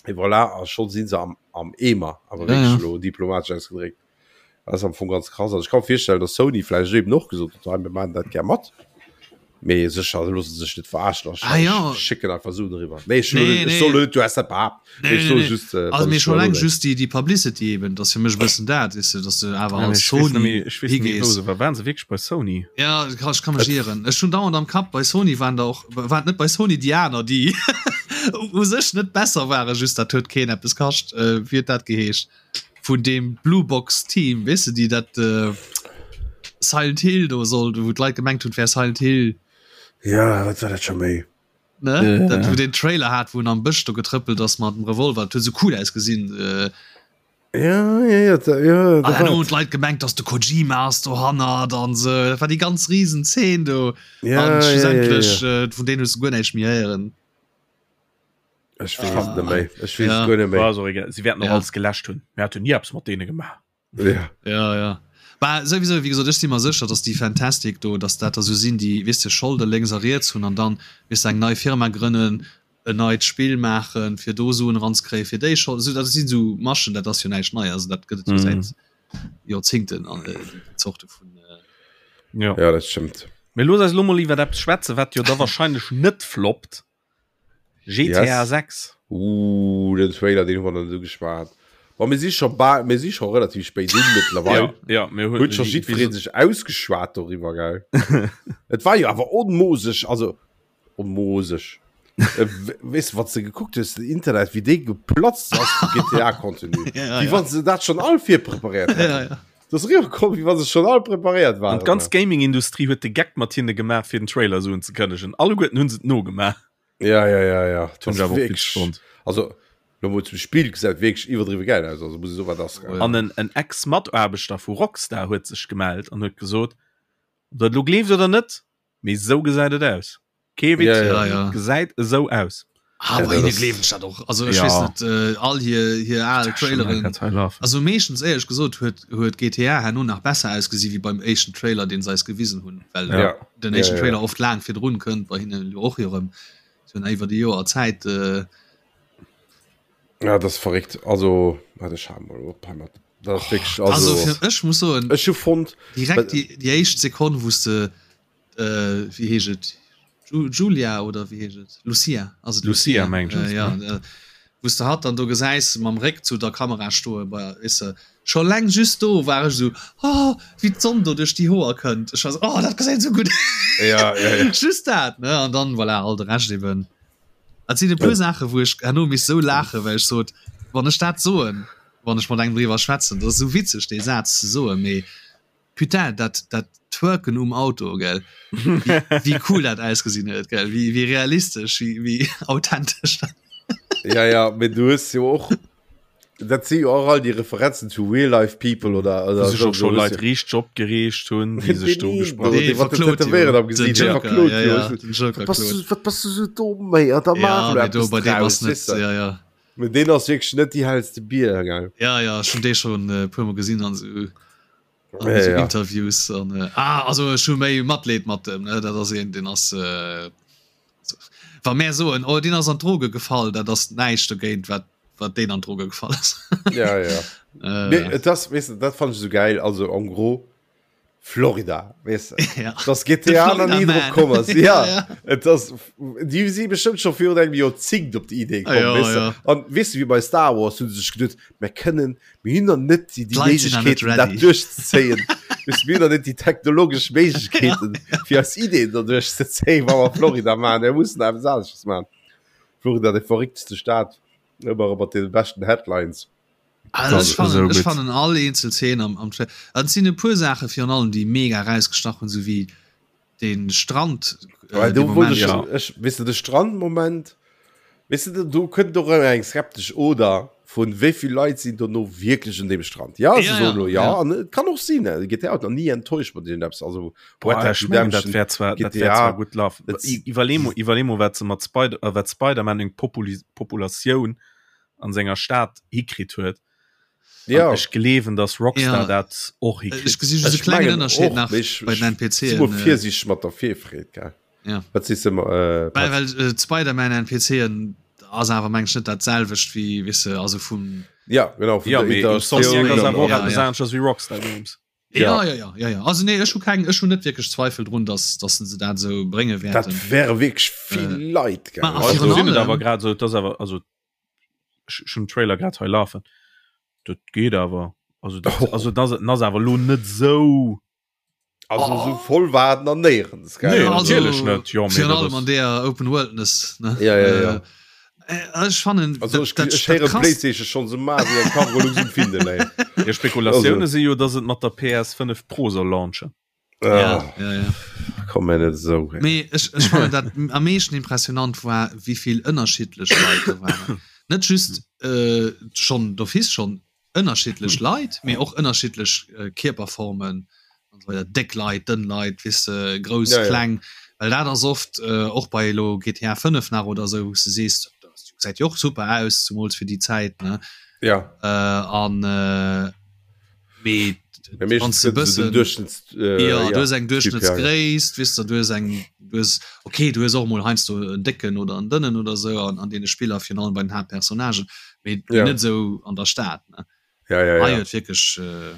Speaker 1: Et voilà, a scho si se am, am Eemer, awer
Speaker 3: Ja,
Speaker 1: wierklech
Speaker 3: ja.
Speaker 1: elo diplomatesch ausgedréckt. Dat ass am Fong ganz krass. Also ech ka mer virstellen, datt Sony vläicht eben och gesot huet, hei mir maachen dat gär mat. Mee sécher loosse se sech net verarschen a
Speaker 3: Ah, ja.
Speaker 1: schécken einfach Suen eriwwer. Nee, ech
Speaker 3: Nee,
Speaker 1: ech
Speaker 3: nee.
Speaker 1: soll net, du has dat behaapt.
Speaker 3: Nee,
Speaker 1: Ech
Speaker 3: nee,
Speaker 1: soe
Speaker 3: nee.
Speaker 1: just, äh,
Speaker 3: Also
Speaker 1: wat
Speaker 3: mee
Speaker 1: ech
Speaker 3: schon
Speaker 1: elo
Speaker 3: eleng
Speaker 1: denken.
Speaker 3: just déi, déi Publicity eben, dat ass fir mech e bëssen dat, weess de, dass de awer
Speaker 2: Ja,
Speaker 3: als
Speaker 2: ech weess net
Speaker 3: Sony
Speaker 2: méi, ech weess net méi, wou
Speaker 3: higees.
Speaker 2: se war. Waren se wierklech bei Sony?
Speaker 3: Ja, ech kann, ech kann mech ieren. Ech hunn dauernd am Kapp, bei Sony waren der och, waren net bei Sony déi aner, déi u sech net besser waren, just dat huet keen eppes kascht. Äh, wéi huet dat geheescht? Vun deem Blue Box Team, weess de, déi dat äh, Silent Hill do sollt, wou d'Leit gemengt hunn, et wär Silent Hill.
Speaker 1: Ja, wat war dat scho méi?
Speaker 3: Ne?
Speaker 2: Ja.
Speaker 3: Dat, wou den Trailer hat, wou en am Bësch do getrëppelt ass mat dem Revolver, dat huet sou cool ausgesinn. Äh,
Speaker 1: Ja, ja, ja, da, ja, da
Speaker 3: an herno
Speaker 1: war
Speaker 3: hunn d'Leit gemengt, dass de Kojima ass dohannert an sou. Dat war déi ganz riesen Zeen do.
Speaker 1: Ja,
Speaker 3: an
Speaker 1: ja, ja, ja,
Speaker 3: schlussendlech,
Speaker 1: ja.
Speaker 3: äh, vun deenen hues du guer näischt méi héieren.
Speaker 1: Ech weess et net méi. Ech weess
Speaker 3: Ja.
Speaker 1: et guer net méi.
Speaker 2: War ass och egal. Si wäerten och
Speaker 3: Ja.
Speaker 2: alles geläscht hunn. Mir haten ni eppes mat deene gemaach.
Speaker 1: Ja.
Speaker 3: Ja, ja. Bah, souwisou, wéi gesot, ech si mer sécher, dass déi Fntastic do, dass dat der sou sinn, déi, weess de, Scholde lénks a riets hunn an dann, weess de, eng nei Firma grënnen, en neit Spill maachen, fir do Suen eranzekréien, fir déi Scholden, sou, dat sinn sou Maschen, dat ass jo näischt Neies, also dat gëtt et jo säit Joerzingten, an déi Zorte vun.
Speaker 2: Ja.
Speaker 1: Ja, dat stëmmt.
Speaker 2: Mee looss eis elo mol iwwer eppes schwätzen, wat jo da wahrscheinlech net floppt. GTA
Speaker 1: Yes.
Speaker 2: 6.
Speaker 1: Uh, den Trailer, den hu mer dann esou geschwat. Bon, mir si scho bal, mir si scho relativ spéit un mittlerweile.
Speaker 2: Ja, ja, mir
Speaker 1: Huet scho jiddweree sech ausgeschwat doriwwer, gell? Et war jo awer onmoseg, also onmoseg. Äh, weess de, wann s de gekuckt hues, den Internet, wéi dee geplatzt ass vu GTA-Contenu.
Speaker 3: Ja,
Speaker 1: Wéi
Speaker 3: ja.
Speaker 1: wann se dat schonn all virpreparéiert hätten.
Speaker 3: Ja, ja.
Speaker 1: Dat ass eriwwerkomm, wéi wa se schonn all preparéiert
Speaker 2: An
Speaker 1: waren.
Speaker 2: d'ganz Gaming-Industrie huet de Geck mat hinne gemaach, fir den Trailer esou unzekënnegen. Alleguerten hu se et nogemaach.
Speaker 1: Ja, ja, ja, ja.
Speaker 2: Dat hunn ech awer och witzeg fonnt.
Speaker 1: Also, lo mol zum Spill, gesäit wierklech iwwerdriwwe gäil aus. Also, muss ech soen, wat ass gell.
Speaker 2: An en, en Ex-Mataarbechter vu Rockstar huet sech gemellt an huet gesot, Ob der et elo gleeft oder net, mee esou gesäit et aus. Kee Witz,
Speaker 1: Ja,
Speaker 3: ja. Ja, ja.
Speaker 2: gesäit esou aus.
Speaker 3: Ah,
Speaker 1: Ja,
Speaker 3: bei
Speaker 1: dat
Speaker 3: hinne
Speaker 1: ass-
Speaker 3: gleewen ech dat och. Also ech
Speaker 2: Ja.
Speaker 3: weess net, äh, all hir, hir al Traileren. Also meeschtens éierlech gesot huet, huet GTA herno nach besser ausgesi wéi beim éischten Trailer, deen se eis gewisen hunn, well
Speaker 1: Ja.
Speaker 3: den
Speaker 1: Ja,
Speaker 3: éischten
Speaker 1: ja,
Speaker 3: Trailer
Speaker 1: ja.
Speaker 3: oft laang virdrun kënnt, bei hinne jo och erëm. Se hunn iwwer déi Joer Zäit. Äh,
Speaker 1: Ja, dat ass verréckt. Also, warte, ech schau mol op hei mat. Dat ass wierklech,
Speaker 3: also
Speaker 1: also,
Speaker 3: fir, ech muss soen,
Speaker 1: ech hu fonnt,
Speaker 3: direkt déi, déi éischt Sekonn, wou s de äh, wéi heescht et? Ju Julia oder wéi heescht et? Lucia, ass et
Speaker 2: Lucia,
Speaker 3: Lucia?
Speaker 2: mengen ech,
Speaker 3: Äh, ja, äh, wou s de hatt dann do gesäis mam Réck zu der Kamera stoe bei, weess de, scho leng just do war ech esou, oh, wéi d'Sonn do duerch déi Hoer kënnt. Ech war esou, oh, dat gesäit esou gutt
Speaker 1: Ja, ja, ja.
Speaker 3: Just dat, ne? An dann, voilà, all de Rescht eben. Et sinn e puer Saache wou ech herno misst esou laachen, well ech sot, wann ech dat soen, wann ech mat engem driwwer schwätzen, dat ass esou witzeg dee Saz ze soen, mee Putain, dat, dat Twerken um Auto, gell? Wéi, wéi cool dat ausgesinn huet, gell? Wéi, wéi realistesch, wéi, wéi authentesch dat.
Speaker 1: Ja, ja, mee du hues jo och, dat si jo och all déi Referenzen zu real life people oder, oder
Speaker 2: Wou sech och
Speaker 1: sou,
Speaker 2: scho
Speaker 1: du hues
Speaker 2: Leit
Speaker 1: jo-
Speaker 2: riichteg opgereegt hunn, déi sech do
Speaker 1: Deen
Speaker 2: ugesprach
Speaker 1: do,
Speaker 2: hunn.
Speaker 1: dee mat den
Speaker 3: verklot jo.
Speaker 1: Tätowéieren am
Speaker 3: Den
Speaker 1: Gesiit, dee
Speaker 3: Joker,
Speaker 1: verklot
Speaker 3: ja,
Speaker 1: jo.
Speaker 3: ja, den Joker
Speaker 1: Wat bass
Speaker 3: klot.
Speaker 1: du, wat bass du sou domm, méi? An da
Speaker 3: Ja,
Speaker 1: maach elo
Speaker 3: mee do
Speaker 1: eppes
Speaker 3: bei deem
Speaker 1: draus,
Speaker 3: ass net,
Speaker 1: weess de.
Speaker 3: ja, ja.
Speaker 1: Mee deen ass wierklech net déi hellste Bier, gell?
Speaker 3: Ja, ja, ech hunn dee schonn e puermol gesinn an esou. An
Speaker 1: Ja,
Speaker 3: so
Speaker 1: ja.
Speaker 3: Interviews an äh, ah, also ech hu méi Matleed mat dem ne dat ass een den ass äh, so, wa mär soen oh deen ass an d'Droge gefall, dat ass näischt dogéint wat wat deen an d'Droge gefall ass.
Speaker 1: Ja, ja.
Speaker 3: Äh,
Speaker 1: Nee, et ass, weess de, dat fand ech esou geil. Also en gros, Florida, weess de. Ja. Dass GTA nach ni drop komm ass. Ja, ja. Et ass, déi si bestëmmt scho virun engem Joerzéngt op déi Idee komm, ja, weess de. Ja. An weess de, wéi bei Star Wars hu se sech geduet, mir kënnen, mir hunn nach net déi, déi Méiglechkeeten, dat duerchzezéien. Weess de, mir hunn nach net déi technologesch Méiglechkeeten, fir eis Ideen do duerchzezéien, wa mer Florida maachen. Mir mussen eppes anesches maachen. Florida, déi verréckteste Stad, ëmmer erëm mat deene beschten Headlines.
Speaker 3: Also ech fannen, ech fannen all eenzel Szene am, am Trailer. Et sinn e puer Saache virun allem, déi mega erausgestach hunn, sou wéi den Strand.
Speaker 1: Äh, do wollt ech, ja. ech, weess de, de Strandmoment, weess de, do kënnt och ëmmer eng skeptesch Oder vun wéi vill Leit sinn dono wierklech un deem Strand. Ja, se ja, soen lo ja, ja. an et kann och sinn, GTA huet nach ni enttäuscht mat iergendeppes, also
Speaker 2: Boah, Red Dead Redemption, dat wär zwar, dat wär zwar gutt laufen. Iwwerlee mol, iwwerlee mol, wat se mat Spider, äh, wat Spider-Man eng Populi Populatioun an senger Stad hikritt huet.
Speaker 1: Ja.
Speaker 2: Ech gleewen, dass Rockstar ja. dat och
Speaker 3: hikritt. Ech gesi just e klengen Ënnerscheed nach bei den NPCen.
Speaker 1: Äh, Virsiicht mat der Virfreed, gell?
Speaker 3: Ja.
Speaker 1: Wat sees du,
Speaker 3: äh, Well, well äh, Spider-Man NPCen ass awer meng ech net dat selwecht wéi, weess de, also vum.
Speaker 1: Ja, genau,
Speaker 2: vun ja, der Interaktion. Ja, ja, ja, ja. Wéi Rockstar Games.
Speaker 3: Ja, ja, ja, ja, ja. Also nee, ech hu keng, ech hu net wierklech Zweifel drun, dass, dass se dat esou brénge
Speaker 1: wäerten. Dat wäre wierklech vill äh, Leit.
Speaker 2: Ma, also, sinn et awer grad esou, dass awer also ech hunn den Trailer grad hei lafen. Dat geet awer. Also dat, oh. also das, das awer lo net esou.
Speaker 1: Also oh. so voll war et nach néierens.
Speaker 2: Nee, also, natierlech net.
Speaker 3: Jo, virun allem an der Open Worldness.
Speaker 1: Ne? Ja, ja, ja.
Speaker 3: Äh, Äh, ech fannen
Speaker 1: also ech, dat, ech héieren PlayStation schon se ma wéi eng Cargolux um Findel
Speaker 2: ey. Spekulatioune si jo, datt et mat der PS5 Pro soll launchen.
Speaker 3: Ja, ah. ja, ja.
Speaker 1: Komm mir net esou.
Speaker 3: Mee ech, ech fannen dat am meeschten impressionant war, wéivill ënnerschiddlech Leit do waren. Net just äh, schon d'office schon ënnerschiddlech Leit, mee och ënnerschiddlech Kierperformen an esou weider, déck Leit, dënn Leit, weess de, grouss, ja, kleng, well dat ass oft och bei elo GTA 5 nach oder esou, wou s de sees, dat gesäit jo och super aus, zumools fir déi Zäit, ne?
Speaker 1: Ja.
Speaker 3: An mee
Speaker 1: wann s de e bëssen,
Speaker 3: jo, du hues eng Duerchschnëttsgréisst, weess de, du hues eng, du hues, okay, du hues och emol heiansdo en décken oder en dënnen oder esou an deene Spiller, virun allem bei den Haaptpersonnagen, Mee ja. net sou an der Stad
Speaker 1: ne ja, ja, ja.
Speaker 3: wirklich
Speaker 1: äh...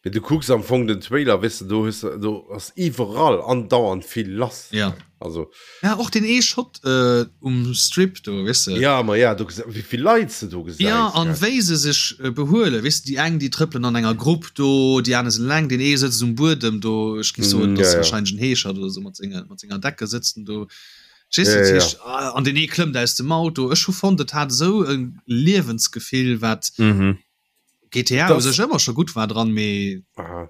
Speaker 1: Mee du kucks am Fong den Trailer wis du du hues du ass iwwerall andauernd vill lass
Speaker 3: ja
Speaker 1: also
Speaker 3: ja och den ee Shot äh, um Strip do wis
Speaker 1: du ja ma ja du wie vill Leit se do
Speaker 3: gesäis ja an wéi se sech äh, behuelen wis du déi eng déi trëppelen an enger Grupp do déi aner sinn eleng den ee sëtzt um Buedem do ech gi soen mm, ja, ja. wahrscheinlich en Heeschert oder sou mat senger mat senger Decke sëtzt en do Verstees du?
Speaker 1: Ja,
Speaker 3: Dat
Speaker 1: ja,
Speaker 3: heescht, ah, an den ee klëmmt aus dem Auto. Ech hu fonnt, et hat esou e Liewensgefill, wat
Speaker 2: Mhm.
Speaker 3: GTA u
Speaker 1: Das-
Speaker 3: sech ëmmer scho gutt war dran, mee
Speaker 1: Aha.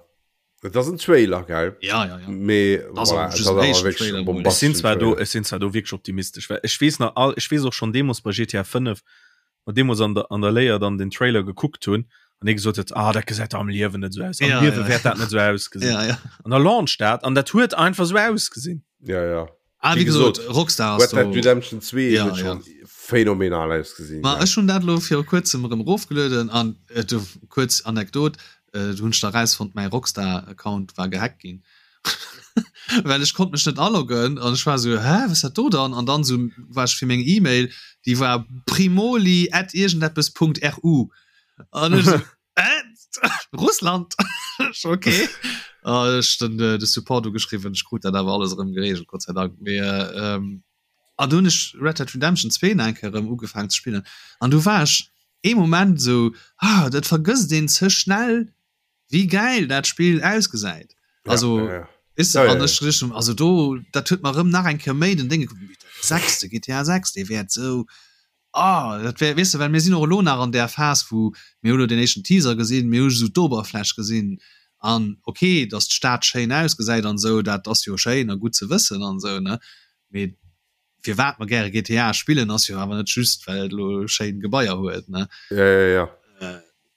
Speaker 1: Et ass en Trailer, gell?
Speaker 3: ja, ja, ja.
Speaker 1: Mee
Speaker 3: Das
Speaker 1: voilà,
Speaker 3: ass
Speaker 1: et
Speaker 3: just
Speaker 1: ass
Speaker 3: en
Speaker 1: awer
Speaker 3: éischten
Speaker 1: wierklech
Speaker 3: Trailer
Speaker 1: e
Speaker 3: mol.
Speaker 2: Ech sinn
Speaker 1: bombasteschen
Speaker 2: zwar do,
Speaker 1: Trailer.
Speaker 2: ech sinn zwar do wierklech optimistesch, well ech weess nach all, ech weess och schonn deemools bei GTA 5, mer deemools an der, an der Léier dann den Trailer gekuckt hunn an ee gesot huet, ah, dat gesäit der am Liewen net esou aus, am
Speaker 3: Ja,
Speaker 2: Liewe
Speaker 3: ja.
Speaker 2: wäert dat net esou ausgesinn.
Speaker 3: Ja, ja.
Speaker 2: An da launcht dat an dat huet einfach esou ausgesinn.
Speaker 1: Ja, ja.
Speaker 3: Ah,
Speaker 1: Wéi
Speaker 3: wéi gesot,
Speaker 1: gesot,
Speaker 3: Rockstar ass
Speaker 1: Red Dead
Speaker 3: do.
Speaker 1: Redemption 2
Speaker 3: Ja,
Speaker 1: huet
Speaker 3: ja.
Speaker 1: schon phänomenal ausgesinn.
Speaker 3: Ma ech hunn dat elo viru kuerzem erëm erofgelueden an äh, du, kuerz Anekdot, äh, du hunn ech da rausfonnt, mäi Rockstar-Account war gehackt ginn. Well ech konnt mech net aloggen an ech war esou, hä, wat ass dat do dann? An dann esou war ech fir meng E-Mail, déi war primoli at iergendeppes Punkt ru. An ech esou, Äh, Russland okay ah, ech den äh, de Support ugeschriwwen ech krut dat awer alles erëm geregelt Gott sei Dank mee äh, ähm, an du hunn ech Red Dead Redemption 2 nach eng Kéier erëm ugefaangen ze spillen an du war ech ee Moment sou ah dat vergësst een ze schnell wéi gäil dat Spill ausgesäit also
Speaker 1: ja, ja.
Speaker 3: Weess de,
Speaker 1: Ja, ja,
Speaker 3: an
Speaker 1: ja.
Speaker 3: ech richtung also do dat huet mer erëm nach eng Kéier méi den Dénge sechste GTA 6 dee wäert sou Ah, dat wär, weess de, well mir sinn och elo nach an där Phas, wou mir hu elo deen éischten Teaser gesinn, mir hu esou d'Oberfläch gesinn an okay, datt d'Stad schéin ausgesäit an esou, dat ass jo schéin a gutt ze wëssen an esou, ne, mee firwat mer gäre GTA spillen, ass jo awer net just, well et elo schéin Gebaier huet, ne.
Speaker 1: Ja, ja, ja.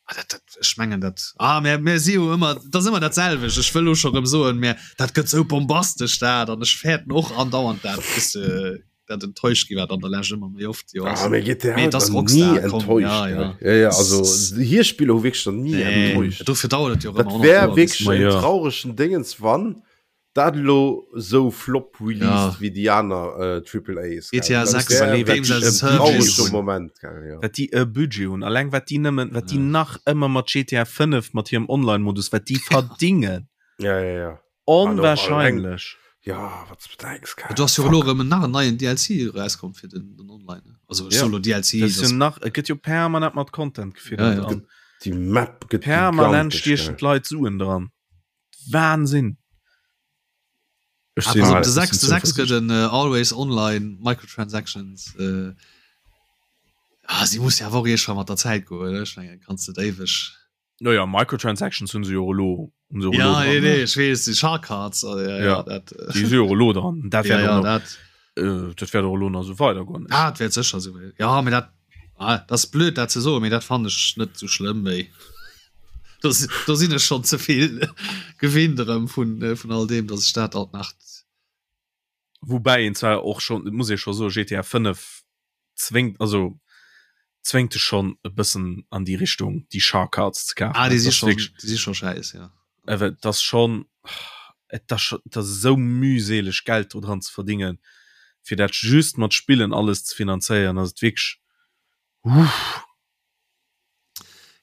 Speaker 3: Ah, dat, dat, ech mengen dat, ah, mir, mir si jo ëmmer, dat ass ëmmer dat selwecht, ech wëll elo scho rëm soen, mä dat gëtt esou bombastesch dat an ech fäerten och andauernd dat, bis de dat enttäuscht gi wat an der Lescht ëmmer méi oft jo
Speaker 1: Ah, mee GTA
Speaker 3: Mee
Speaker 1: huet
Speaker 3: et ass
Speaker 1: nach
Speaker 3: Rockstar,
Speaker 1: nie
Speaker 3: komm,
Speaker 1: enttäuscht,
Speaker 3: ja,
Speaker 1: gell?
Speaker 3: ja.
Speaker 1: Ja, ja, also hir Spiller hu wierklech nach nie
Speaker 3: Nee,
Speaker 1: enttäuscht.
Speaker 3: dofir dauert et jo och
Speaker 1: Dat
Speaker 3: ëmmer 100
Speaker 1: wär
Speaker 3: Joer bis
Speaker 1: wierklech
Speaker 2: Ma
Speaker 1: en
Speaker 2: ja.
Speaker 1: trauregen Déngens, wann dat elo sou flop released
Speaker 3: Ja.
Speaker 1: wéi déi aner äh, Triple A's. gell?
Speaker 3: GTA
Speaker 1: Dat
Speaker 3: 6
Speaker 1: wär
Speaker 2: Überlee, wat
Speaker 3: Games
Speaker 2: déi
Speaker 3: as
Speaker 2: e
Speaker 3: a Service
Speaker 1: traurege
Speaker 2: Budget hunn.
Speaker 1: Moment, gell, ja.
Speaker 2: Wat déi e Budget hunn, alleng wat déi nëmmen, wat déi
Speaker 3: Ja.
Speaker 2: nach ëmmer mat GTA 5, mat hirem Online-Modus, wat déi verdingen.
Speaker 1: Ja, ja, ja.
Speaker 2: Onwahrscheinlech.
Speaker 1: Ja, wat du denkst,
Speaker 3: Du hast jo elo erëm nach en neien DLC erauskomm fir den, den Online. Also ja. solo DLC.
Speaker 2: Das das nach, et gëtt jo permanent mat Content
Speaker 1: gefiddert. Ja, ja. Déi Map
Speaker 2: gëtt permanent stiechen d'Leit Suen dran. Wahnsinn.
Speaker 3: Ech ah, pass op, de 6 de 6 gëtt en uh, Always Online Microtransactions. Äh, ah, si muss ja awer och iergendwann mat der Zäit goen, ech mengen, kanns net éiweg.
Speaker 2: Naja, Microtransactions hunn se jo elo
Speaker 3: hunn se ja, nee, nee, ech weess, déi Shark Cards oh, ja, ja,
Speaker 2: ja. Dat, äh, déi si jo elo dran. Dat ja, ja, dat, äh, dat wäert och elo nach esou weidergoen.
Speaker 3: Ah, dat wäert sécher esou. Ja, mee dat ah, dat ass blöd dat ze soen, mee dat fannen ech net esou schlëmm méi. Do, do sinn ech schonn ze vill gewinnt erëm vun, äh, vun all deem, datt ech dat alt nach
Speaker 2: Woubäi een zwar och schonn, et muss ee scho soen, GTA 5 zwéngt, also zwéngt dech schonn e bëssen an déi Richtung, déi Shark Cards ze kafen.
Speaker 3: Ah, déi si schonn, déi si scho schäiss,
Speaker 2: jo. Awer et ass schonn, et ass scho, et ass esou mühseleg Geld do dran ze verdingen, fir dat just mat Spillen alles ze finanzéieren, ass et wierklech, uff.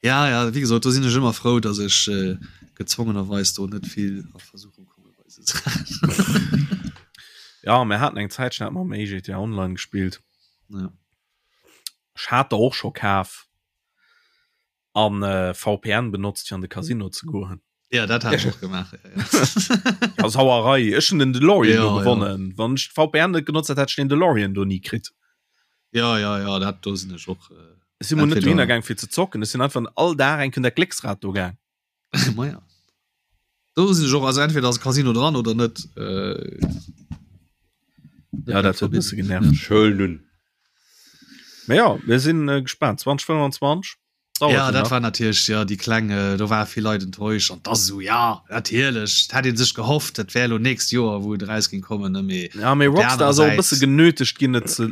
Speaker 3: Ja, ja, wéi gesot, do sinn ech ëmmer frou, datt ech äh, gezwongenerweis do net vill a Versuchung komme bei se
Speaker 2: Saachen. Ja, mir haten eng Zäitchen hat mer méi GTA Online gespillt.
Speaker 3: Ja.
Speaker 2: Ech hat der och scho kaf an äh, VPN benotzt fir an de Casino ze goen.
Speaker 3: Ja, dat hat ech och gemaach. Ja,
Speaker 2: ja. ja, Sauerei. Ech hun den DeLorean ja, do gewonnen. Ja. Wann ech VPN net genotzt hätt, hätt ech den DeLorean do nie kritt.
Speaker 3: Ja, ja, ja, dat do sinn ech och.
Speaker 2: Äh, Ech sinn mol net dohinner gaang fir ze zocken. Ech sinn einfach all Dag eng Kéier dat Glécksrad do gaang.
Speaker 3: Ma ja. Do sinn ech och, also entweder ass e Casino dran oder net. Äh,
Speaker 2: ja, dat huet e bësse genervt.
Speaker 1: Schön nun.
Speaker 2: Mä ja, mir sinn äh, gespaant. 2025.
Speaker 3: Dauert ja, dat war natierlech ja déi kleng äh, do war vill Leit enttäuscht an das so ja natierlech hat een sech gehofft, dat wär lo nächst Joer wou et eraus ging kommen ne
Speaker 2: mee ja mee Rockstar ass och e bësse genötegt ginn et ze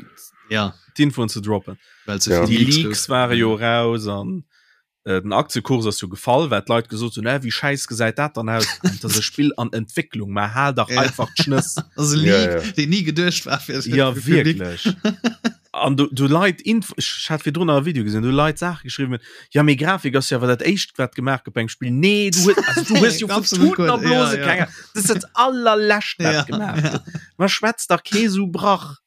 Speaker 3: ja
Speaker 2: d'Infoen ze droppen.
Speaker 3: Well ze
Speaker 2: ja. Déi Leaks ware jo raus an äh, den Aktiekurs ass jo gefall, well d'Leit gesot hunn, äh, wéi schäiss gesäit dat dann aus? Dat ass e Spill an Entwécklung, mä hal dach
Speaker 3: ja.
Speaker 2: einfach d'Schnëss.
Speaker 3: Das ass e Leak, ja, ja. deen ni geduecht war
Speaker 2: fir ja, wierklech. An du, du Leit Inf ech hat virdrun nach e Video gesinn, du Leit Saache geschriwwen hunn, ja mee Grafik ass jo awer dat éischt wat gemaach gëtt beim Spill. Nee, du hues, also du hues jo vu Tuten a Blose
Speaker 3: ja, ja.
Speaker 2: keng Dat ass dat allerlescht wat
Speaker 3: ja,
Speaker 2: gemaach
Speaker 3: ja.
Speaker 2: gëtt. Ma schwätz dach kee sou Brach.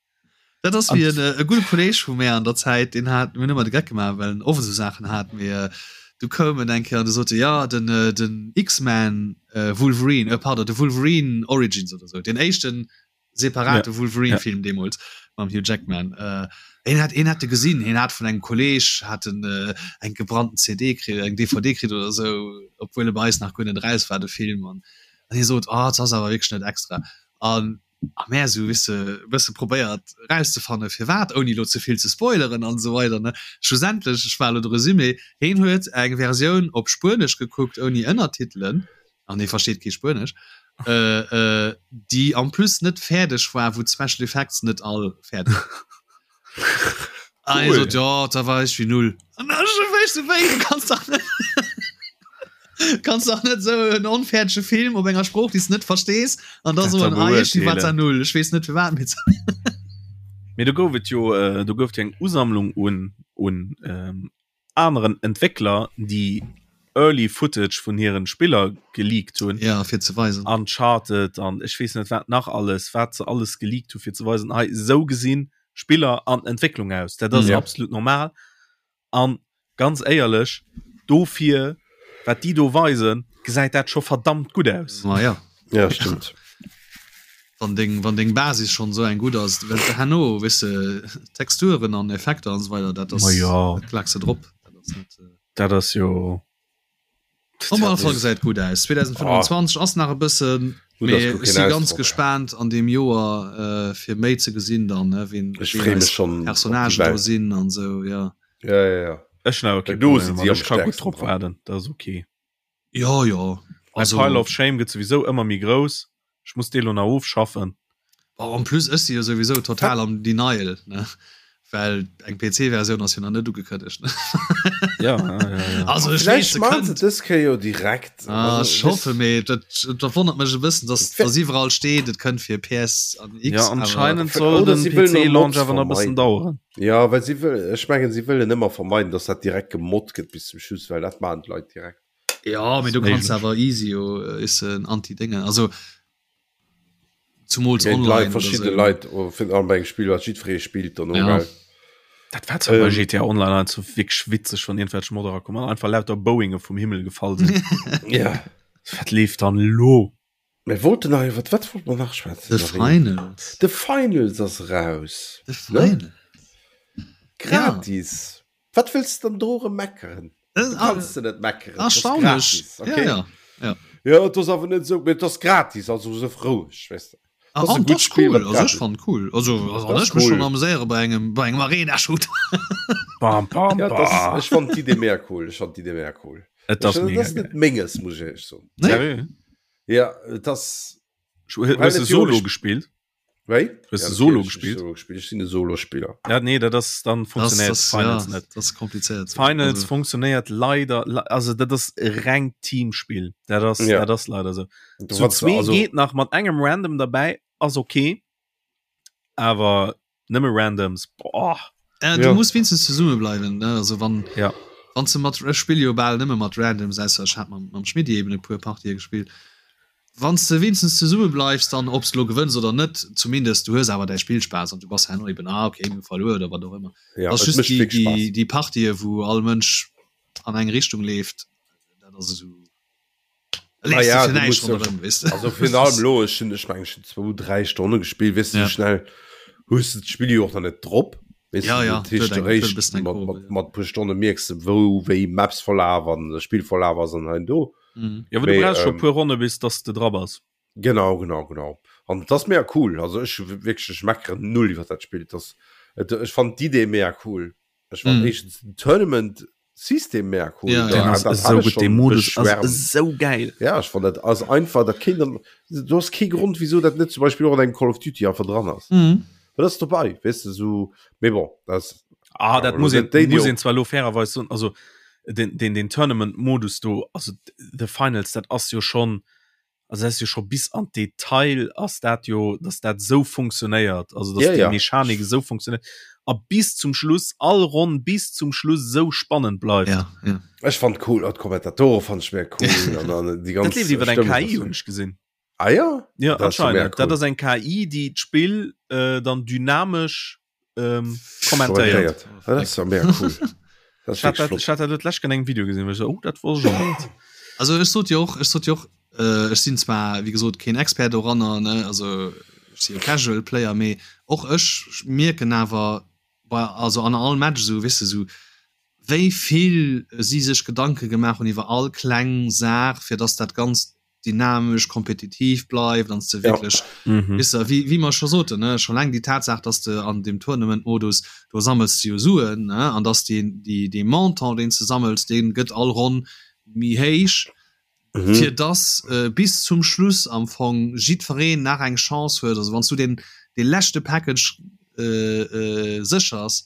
Speaker 3: Dat ass wéi en, e gudde Kolleg vu mär an der Zäit, deen hat, mir hunn ëmmer de Geck gemaach, well en oft esou Saachen hat, mee du koum en eng Kéier an du sot e, jo den, den X-Men Wolverine, euh pardon, de Wolverine Origins oder esou, deen éischten separate ja. Wolverine-Film ja. deemools mam Hugh Jackman. Äh, een hat, een hat de gesinn, hien hat vun engem Kolleg hat en, äh, eng gebrannten CD kritt, eng DVD kritt oder esou, obwuel e bei eis nach guer net eraus war, de Film. An, an hie sot, oh, dat ass awer wierklech net extra. An a mär esou, weess de, e bësse probéiert erauszefanne firwat, ouni elo ze vill ze spoileren an esou weider, ne. Schlussendlech, ech war elo de Resumé, hien huet eng Versioun op Spuenesch gekuckt ouni Ënnertitelen, an hie versteet kee Spuenesch, äh, äh, déi en plus net fäerdeg war, wou d'Special Effects net all fäerdeg waren. Ah, hie sot, ja, da war ech wéi null. An da ech wéi, wéi, du kanns dach net, kanns dach net esou en onfäerdege Film op enger Sprooch, déi s de net verstees, an da soen, ah, iergendwéi war zwar null, ech weess net firwat, mee.
Speaker 2: Mee do gouf et jo, do gouf et jo eng Usammlung un, un aneren Entwéckler déi Early Footage vun hiren Spiller geleakt hunn.
Speaker 3: Ja, fir ze weisen.
Speaker 2: Uncharted an ech weess net wat nach alles, wat se alles geleakt hu fir ze weisen, hei esou gesinn Spiller an Entwécklung aus. Dat ass ja. absolut normal. An ganz éierlech, dofir wat déi do weisen, gesäit dat scho verdammt gutt aus.
Speaker 3: Ma ja.
Speaker 1: Ja, stimmt.
Speaker 3: Wann deng, wann deng Basis schonn esou eng gutt ass, well herno, weess de, Texturen an Effekter an esou weider, dat ass,
Speaker 2: Ma ja.
Speaker 3: dat klaaks de drop. Dat ass
Speaker 2: net. Dat ass jo.
Speaker 3: Op alle Fall gesäit gutt aus. 2025 ass nach e bëssen,
Speaker 1: Gutt, ass
Speaker 3: mee
Speaker 1: guer
Speaker 3: ech
Speaker 1: keen
Speaker 3: si ganz
Speaker 1: Ausdrock.
Speaker 3: gespaant an deem Joer, fir méi ze gesinn dann, ne, wien,
Speaker 1: Ech
Speaker 3: wien
Speaker 1: free mech
Speaker 3: eis
Speaker 1: schonn op déi
Speaker 3: Personnagen do
Speaker 1: Welt.
Speaker 3: sinn an esou, ja.
Speaker 1: Ja, ja, ja.
Speaker 2: Ech hunn awer kee
Speaker 1: Well do
Speaker 2: Problem
Speaker 1: sinn
Speaker 2: mat.
Speaker 1: si am
Speaker 2: Ech ka gutt
Speaker 1: stäerksten
Speaker 2: drop
Speaker 1: dran.
Speaker 2: waarden, dat ass ok.
Speaker 3: Jo, jo.
Speaker 2: Mäi
Speaker 3: Also.
Speaker 2: Pile of Shame gëtt souwisou ëmmer méi grouss. Ech muss dee lo nach ofschaffen.
Speaker 3: Bon, en plus ech si jo souwisou total am Denial, ne, well eng PC-Versioun ass jo nach net ugekënnegt, ne.
Speaker 2: Ja, ja, ja, ja.
Speaker 3: Also ech weess,
Speaker 1: Vläicht
Speaker 3: se
Speaker 1: maachen se
Speaker 3: kënnt.
Speaker 1: dës Kéier jo direkt.
Speaker 3: Ah,
Speaker 1: Also,
Speaker 3: ech hoffe, mee dat, dat wonnert mech e bëssen, dass, dass iwwerall steet, et kënnt fir PS an X,
Speaker 2: Ja,
Speaker 3: awer.
Speaker 2: anscheinend soll
Speaker 1: Oder
Speaker 2: den
Speaker 1: si wëllen och
Speaker 2: PC-Launch
Speaker 1: Mods
Speaker 2: awer nach e bëssen
Speaker 1: vermeiden.
Speaker 2: daueren.
Speaker 1: Ja, well si wëll, ech mengen, si wëllen ëmmer vermeiden, dass dat direkt gemoddt gëtt bis zum Schluss, well dat maachen d'Leit direkt.
Speaker 3: Ja, mee du kanns awer easy jo is en Anti-Déngen. Also zumools
Speaker 1: Géint
Speaker 3: online
Speaker 1: Leit,
Speaker 3: oder
Speaker 1: verschidde
Speaker 3: sou.
Speaker 1: Leit, oh, fir an bei engem Spill, wat jiddweree spillt dann och,
Speaker 3: Ja.
Speaker 1: gell?
Speaker 2: Dat war zwar bei
Speaker 1: Ähm.
Speaker 2: GTA Online ein so wirklich witzeg, wann irgendwelche Modder kommen an einfach lauter Boeinge vum Himmel gefall sinn.
Speaker 1: Ja.
Speaker 2: Wat leeft dann lo?
Speaker 1: Mir wollten nach iwwer wat wollt mer nach schwätzen?
Speaker 3: The
Speaker 1: Marie?
Speaker 3: Finals.
Speaker 1: The Finals ass raus.
Speaker 3: The
Speaker 1: Ne?
Speaker 3: Finals.
Speaker 1: Gratis. Wat wëlls de dann do erëm meckeren?
Speaker 3: Äh,
Speaker 1: Du kanns de net meckeren.
Speaker 3: Ah, Erstaunlech.
Speaker 1: Okay.
Speaker 3: Ja, ja. ja.
Speaker 1: Ja, et ass awer net esou, mee et ass gratis, also sëff roueg, weess de.
Speaker 3: Ah,
Speaker 1: Das ass e
Speaker 3: an
Speaker 1: gutt
Speaker 3: das
Speaker 1: Spiel,
Speaker 3: cool.
Speaker 1: wat
Speaker 3: Also ech
Speaker 1: gratis.
Speaker 3: fand cool. Also, also
Speaker 1: Das
Speaker 3: ech mech
Speaker 1: cool.
Speaker 3: schon amuséiere bei engem bei engem Arena Shooter.
Speaker 2: Bam, bam,
Speaker 1: Ja, das,
Speaker 2: bam.
Speaker 1: ech fand d'Idee mega cool. Ech fand d'Idee mega cool.
Speaker 2: Et ass
Speaker 1: Ech,
Speaker 2: mega
Speaker 1: das ass
Speaker 2: geil.
Speaker 1: net menges, muss ech éierlech soen.
Speaker 3: Nee?
Speaker 2: Seriö?
Speaker 1: Ja, et ass.
Speaker 2: Hues
Speaker 1: Well
Speaker 2: du
Speaker 1: et jo
Speaker 2: Solo
Speaker 1: ech-
Speaker 2: gespielt?
Speaker 1: Wéi?
Speaker 2: Hues
Speaker 1: Ja,
Speaker 2: du Solo
Speaker 1: natierlech, ech
Speaker 2: gespielt?
Speaker 1: Solo gespielt. Ech sinn e Solospiller.
Speaker 2: Ja, nee, dat ass dann
Speaker 3: Das,
Speaker 2: funktionéiert
Speaker 3: das,
Speaker 2: Finals
Speaker 3: ja,
Speaker 2: net.
Speaker 3: das ist kompliziert.
Speaker 2: Finals
Speaker 3: Also,
Speaker 2: funktionéiert leider, le- also dat ass e rengt Teamspiel. Dat ass,
Speaker 1: Ja.
Speaker 2: dat ass leider so.
Speaker 1: Du
Speaker 2: Zu
Speaker 1: wat-
Speaker 2: zwee
Speaker 1: also,
Speaker 2: geet nach mat engem Random dabei, ass okay. Awer nëmme Randoms, boah.
Speaker 3: Äh, du
Speaker 1: Ja.
Speaker 3: muss wenigstens zesumme bleiwen ne? also wann
Speaker 2: Ja.
Speaker 3: wann du mat ech spill jo bal nëmme mat Randoms ausser ech hat mam, mam Schmidti eben e puer Partië gespillt. Wann s de wenigstens zesumme bleifs, dann ob s de lo gewënns oder net, zumindest du hues awer däi Spillspaass an du bass herno eben ah okay mir hu verluer oder wat och ëmmer.
Speaker 1: Ja,
Speaker 3: Ass
Speaker 1: et
Speaker 3: just
Speaker 1: mécht
Speaker 3: déi,
Speaker 1: wierklech
Speaker 3: déi,
Speaker 1: Spaass.
Speaker 3: déi Partië wou all Mënsch an eng Richtung leeft, dat ass esou
Speaker 1: Ah
Speaker 3: leefs du
Speaker 1: ja,
Speaker 3: fir
Speaker 1: du
Speaker 3: näischt
Speaker 1: musst ja-
Speaker 3: ronderëm, weess de.
Speaker 1: Also virun allem lo, ech hunn, ech mengen, ech hunn zwou, dräi Stonne gespillt, weess du,
Speaker 3: Ja.
Speaker 1: sou schnell hues du d'Spill jo och nach net drop. Weess
Speaker 3: Ja,
Speaker 1: du,
Speaker 3: ja,
Speaker 1: dat heescht,
Speaker 3: huet eng- huet e
Speaker 1: eréischt
Speaker 3: bëssen eng
Speaker 1: mat,
Speaker 3: Kurve,
Speaker 1: mat,
Speaker 3: ja.
Speaker 1: mat puer Stonne mierks de, wou wéi Maps verlaf an de Spill verlaf ass an hei an do.
Speaker 3: Mhm.
Speaker 2: Ja, aber du
Speaker 1: Mee,
Speaker 2: brauchst schon
Speaker 1: ähm,
Speaker 2: puer Ronne bis dass du dra bass.
Speaker 1: Genau, genau, genau. An dat ass mega cool. Also ech wierklech, ech meckeren null iwwer dat Spill. Das, et, ech fand d'Idee mega cool. Ech fand
Speaker 3: Mhm.
Speaker 1: éischtens den Tournament System mega cool.
Speaker 3: Ja,
Speaker 1: Da-
Speaker 3: ja.
Speaker 2: Den ass
Speaker 1: dat
Speaker 2: esou
Speaker 1: hat ech
Speaker 2: gutt,
Speaker 1: schon
Speaker 2: dee Modus ass
Speaker 1: beschwärmt.
Speaker 2: esou geil.
Speaker 1: Ja, ech fand dat ass einfach, dat kéint dann, du hast kee Grond, wieso dat net zum Beispiel och an engem Call of Duty einfach dran ass.
Speaker 3: Mhm.
Speaker 1: Well dat ass dobei, weess de, sou, mee bon, dat ass,
Speaker 2: Ah,
Speaker 1: Ja,
Speaker 2: dat
Speaker 1: aber
Speaker 2: muss
Speaker 1: lo
Speaker 2: een,
Speaker 1: déi, déi
Speaker 2: muss
Speaker 1: och-
Speaker 2: een zwar lo fairerweis soen, also den, den, den Tournament-Modus do, also The Finals, dat ass jo schon, also dat ass jo scho bis an d'Detail ass dat jo, dass dat sou funktionéiert, also dass
Speaker 1: Ja,
Speaker 2: déi
Speaker 1: ja.
Speaker 2: Mechanik esou funktionéiert a bis zum Schluss, all Ronn bis zum Schluss sou spannend bleift.
Speaker 3: Ja, ja.
Speaker 1: ech fand cool, och d'Kommentatore fand ech mega cool an dann déi ganz
Speaker 2: Dat leeft iwwer eng
Speaker 1: Stëmmung,
Speaker 2: KI,
Speaker 1: das-
Speaker 2: hunn ech gesinn.
Speaker 1: Ah ja?
Speaker 2: Ja,
Speaker 1: Das ist ja mega
Speaker 2: anscheinend. Dat
Speaker 1: cool.
Speaker 2: ass eng KI, déi d'Spill äh, dann dynamesch ähm, kommentéiert.
Speaker 1: Kommentéiert. Ah, Das ist ja mega cool. Das ist
Speaker 2: Ich hat
Speaker 1: wirklich
Speaker 2: dat,
Speaker 1: flott.
Speaker 2: ich hat dat lech an engem Video gesinn, wo ich so, oh, dat wor schon net.
Speaker 3: Also ech sot jo och, ech sot jo och, äh, ech sinn zwar wéi gesot keen Expert doranner, ne, also ech si jo Casual Player, mee och ech mierken awer bei also an all Match esou, weess de, esou wéi vill si sech Gedanke gemaach hunn iwwer all kleng Saach, fir dass dat Ganzt dynamesch, kompetitiv bleift an s de wierklech,
Speaker 2: Mhm.
Speaker 3: weess de, wéi wéi mer scho soten, ne, scho laang déi Tatsaach, dass de an deem Tournament-Modus, do sammels de jo Suen, ne, an dass deen déi dee Montant, deen s de sammels, dee gëtt all Ronn méi héich,
Speaker 1: Mhm.
Speaker 3: fir dass bis zum Schluss am Fong jiddwereen nach eng Chance huet. Also wann s du deen dee leschte Package séchers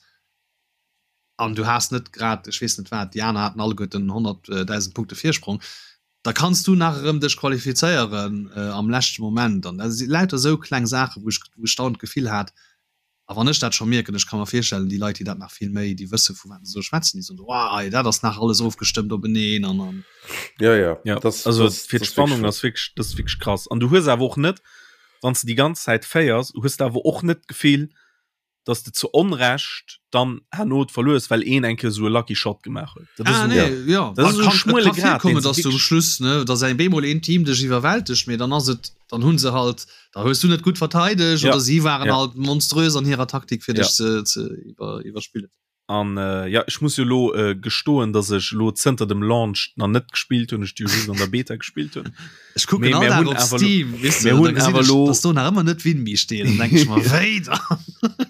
Speaker 3: an du has net grad, ech weess net wat, déi aner haten alleguerten 100.000 Punkte Virsprong, da kanns du nach erëm dech qualifizéieren am leschte Moment. An dat si lauter esou kleng Saachen, wou ech wou ech dauernd d'Gefill hat, a wann ech dat scho mierken, ech ka mer virstellen, déi Leit, déi dat nach vill méi, déi wësse vu wat se do schwätzen, déi soen, Wow, ei, dat ass nach alles ofgestëmmt openeen an an.
Speaker 1: Ja, ja.
Speaker 2: Ja,
Speaker 1: Das,
Speaker 2: also
Speaker 1: das,
Speaker 2: fir
Speaker 1: das ist
Speaker 2: d'Spannung
Speaker 1: wirklich
Speaker 2: ass wierklech, dat ass wierklech krass. An du hues awer och net, wann s de déi ganz Zäit féiers, hues de awer och net d'Gefill, dass de zu Onrecht dann herno verluers, well een eng Kéier esou e lucky shot gemaach huet. Dat ass
Speaker 3: Ah,
Speaker 2: esou,
Speaker 3: nee, ja.
Speaker 2: dat ass esou e
Speaker 3: Kann, et
Speaker 2: schmuele
Speaker 3: kann
Speaker 2: Grad,
Speaker 3: virkommen,
Speaker 2: deen se
Speaker 3: dass du um
Speaker 2: wierklech.
Speaker 3: Schluss, ne, dass eng bemol een Team dech iwwerwältegt, mee dann ass et, dann hunn se halt, da hues du net gutt verteidegt
Speaker 2: Ja,
Speaker 3: oder si waren
Speaker 2: ja.
Speaker 3: halt monströs an hirer Taktik fir
Speaker 2: Ja.
Speaker 3: dech ze, ze iwwer, iwwerspillen.
Speaker 2: An äh, ja, ech muss jo lo äh, gestoen, dass ech lo zënter dem Launch nach net gespillt hunn, ech déi jo just an der Beta gespillt hunn.
Speaker 3: Ech kucken
Speaker 2: Mee
Speaker 3: all
Speaker 2: mir
Speaker 3: Dag
Speaker 2: hunn
Speaker 3: op
Speaker 2: awer lo,
Speaker 3: Steam, weess
Speaker 2: mir
Speaker 3: de, da
Speaker 2: hunn
Speaker 3: gesinn
Speaker 2: awer
Speaker 3: ech,
Speaker 2: lo,
Speaker 3: dass do nach ëmmer net Winmi steet, dann denk ech mer, wéi dann?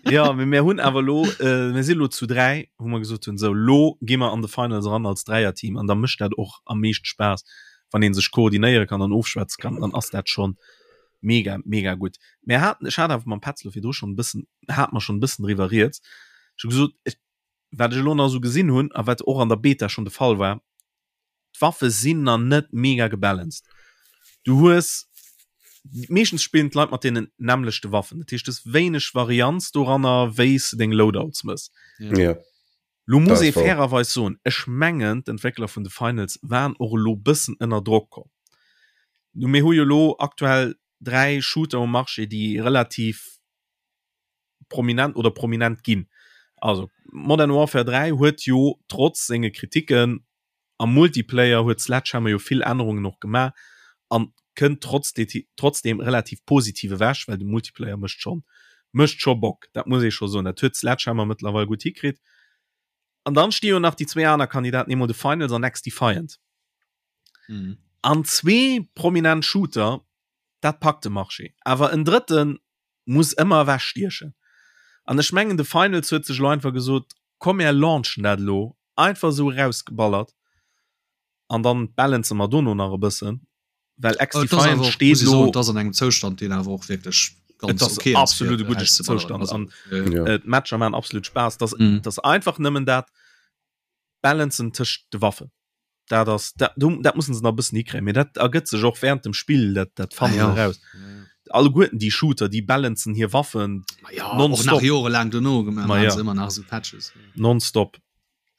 Speaker 2: ja, mee mir hunn awer lo, äh, mir si lo zu 3, wou mer gesot hunn, sou lo gi mer an de Finals eran als Dräierteam an da mécht dat och am meeschte Spaass, wann ee sech koordinéiere kann an ofschwätze kann, dann ass dat schonn mega, mega gutt. Mir haten, ech hat awer mam Petz lo virdru schonn e bëssen, hate mer schonn e bëssen driwwer rieds, ech hu gesot, ech, wat ech elo nach esou gesinn hunn a wat och an der Beta schonn de Fall war, d'Waffe sinn nach net mega gebalanced. Du hues meeschtens spillen d'Leit mat deenen nämmlechte Waffen, dat heescht du hues wéineg Varianz doranner, wéi s de deng Loadouts mëss.
Speaker 1: Ja.
Speaker 2: Lo muss ee fairerweis soen, ech mengen d'Entwéckler vun The Finals waren och elo bëssen ënner Drock komm. Nu mir hu jo elo aktuell 3 Shooter um Marché, déi relativ prominent oder prominent ginn. Also Modern Warfare 3 huet jo trotz senge Kritiken am Multiplayer huet Sledgehammer jo vill Ännerungen och gemaach an kënnt trotz trotzdem relativ positiv ewech, well de Multiplayer mécht schonn mécht scho Bock, dat muss ee scho soen. Dat huet Sledgehammer mëttlerweil gutt hikritt. An dann sti jo nach déi zwee aner Kandidaten, eemol The Finals an XDefiant. Mhm. An zwee prominent Shooter, dat packt de Marché. Awer en drëtten muss ëmmer ewech stiechen. An ech mengen The Finals huet sech elo einfach gesot, komm mär launchen dat elo, einfach esou erausgeballert an dann balancen mer dono nach e bëssen, well XDefiant
Speaker 3: steet elo. Et ass an engem Zoustand deen awer och wierklech
Speaker 2: ganz ok ass. Absolut e gudde Zoustand an d'Matcher maachen absolut Spaass. Et ass einfach nëmmen dat Balancen tëscht de Waffen. Dat ass dat, dat mussen se nach e bëssen hikréien, mee dat ergëtt sech och während dem Spill, dat dat fannen se eraus. Alleguerten déi Shooter, déi balancen hir Waffen
Speaker 3: ja, nonstop. Och nach jorelaang dono gemaach, ma ja. ëmmer nach esou Patches.
Speaker 2: Nonstop.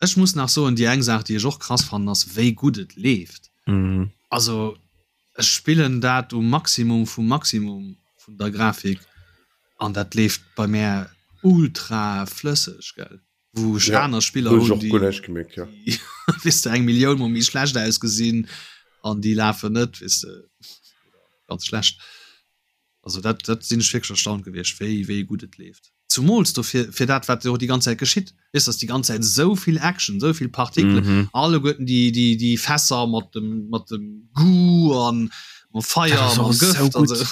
Speaker 3: Ech muss nach soen, déi eng Saach, déi ech och krass fannen, ass wéi gutt et leeft.
Speaker 2: Mm.
Speaker 3: Also ech spillen dat um Maximum vum Maximum vun der Grafik an dat leeft bei mär ultra flësseg, gell. wou ech ja, aner Spiller
Speaker 1: hunn, déi, gemerkt, ja.
Speaker 3: déi weess de, eng Millioun mol méi schlecht ausgesinn an déi lafen net, weess de, ganz schlecht. Also dat, dat sinn ech wierklech erstaunt gewiescht, wéi, wéi gutt et leeft. Zumools dofir, fir dat, wat jo déi ganz Zäit geschitt, weess, dass déi ganz Zäit esou vill Action, esou vill Partikelen, mm -hmm. alleguerten déi, déi, déi Fässer mat dem, mat dem Goo an mam Feier, mam Gëft an
Speaker 2: sou.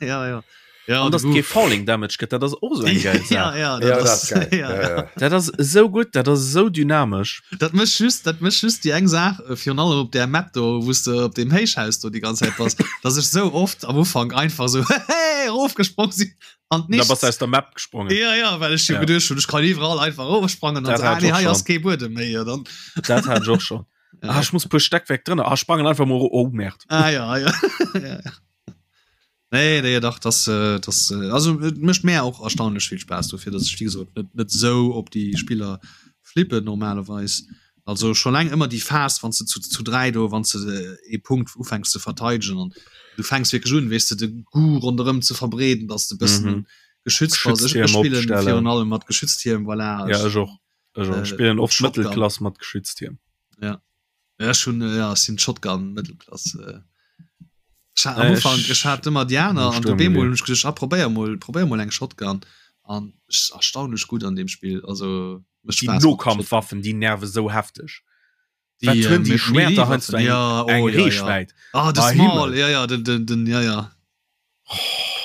Speaker 2: ja, ja. Ja, an dass kee Falling Damage gëtt, dat ass och esou eng geil
Speaker 3: Saach. Ja, ja, dat, ja, ass,
Speaker 2: dat, ja, ja. dat ass esou gutt, dat ass esou dynamesch.
Speaker 3: Dat mécht just, dat mécht just déi eng Saach, äh, virun allem op där Map do, wou s de op deem Héichhaus do déi ganz Zäit bass, dass ech sou oft am Ufank einfach sou hey, erofgesprong sinn
Speaker 2: an Da bass du aus der Map gesprongen.
Speaker 3: Ja, ja, well ech jo ja. geduecht hunn, ech kann iwwerall einfach erofsprangen an
Speaker 2: so, ah,
Speaker 3: nee, hei ass kee Buedem méi. Ja, dann.
Speaker 2: Dat hat ech och schon. Ja. Ah, ech muss puer Steckwerk drënner. Ah, sprangen einfach mol, oh Merd.
Speaker 3: Ah, ja, ja. ja, ja. Nee, nee, dach das, äh, das äh, also et mécht mär och erstaunlech vill Spaass dofir, dass ech wéi gesot net net esou op déi Spiller flippen normalerweis. Also scho laang ëmmer déi Phas wann s de zu zu 3 do wann s de ee Punkt ufänks ze verteidegen an du fänks wierklech un weess de de Goût ronderëm ze verbreeden, dass de bëssen mhm. geschützt bass. Ech, ech spillen virun allem mat Geschütztierm
Speaker 2: voilà. Ja, ech och. Ech och. Äh, spillen oft Mëttelklass mat Geschütztierm.
Speaker 3: Ja. Ja, ech hunn ja, ech sinn Shotgun Mëttelklass. Äh. Ech hat am Ufank ech hat ëmmer déi aner an op eemol hunn ech geduecht, ah probéier mol probéier mol eng Shotgun an ech erstaunlech gutt an deem Spill. Also
Speaker 2: mécht Déi Spaass mat der Shotgun. Nokampfwaffen, déi nerve sou hefteg. Déi Wat hunn déi Schwerter heiansdo eng
Speaker 3: ja, oh,
Speaker 2: eng
Speaker 3: ja, ja.
Speaker 2: Reechwäit.
Speaker 3: Ah de Small, ja ja den den den ja ja.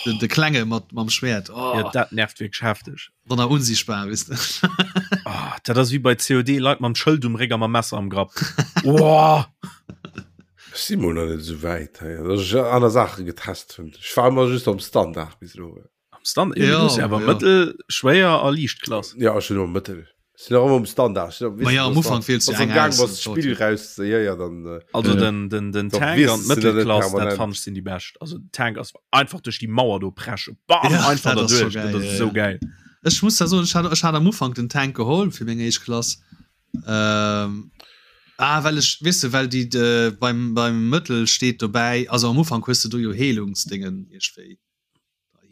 Speaker 3: Den, de Klenge mat mam Schwert.
Speaker 2: Oh. Ja, dat nervt wierklech hefteg.
Speaker 3: Wann er unsichtbar wis
Speaker 2: de. Oh, dat ass wéi bei COD Leit mam Schëld um Réck a mam Messer am Grapp. Oh.
Speaker 1: Ech si mol nach net esou wäit hei, dass ech aner Saache getest hunn. Ech war ëmmer just am Standard bis elo.
Speaker 2: Am Standard? Ja, ja, ja awer ja. Mëttel, schwéier a liicht Klass.
Speaker 1: Ja, ech hunn ëmmer Mëttel. Sinn och ëmmer um Standard.
Speaker 3: Ma ja, am Ufank
Speaker 1: wiels du eng aus. Wann Spill raus, ja, ja, dann.
Speaker 2: Äh, also den, den, den Tank an d'Mëttelklass, dat fand ech sinn déi bescht. Also den Tank ass einfach duerch déi Mauer do preschen. Bam, ja, einfach da duerch.
Speaker 3: Dat
Speaker 2: ass esou geil.
Speaker 3: Ech muss da soen, ech hat, ech hat am Ufank den Tank geholl fir meng éischt Klass. Ähm, ah, well ech, weess de, well déi de, beim, beim Mëttel steet dobäi, also am Ufank hues de do jo Heelungsdéngen iergendwéi.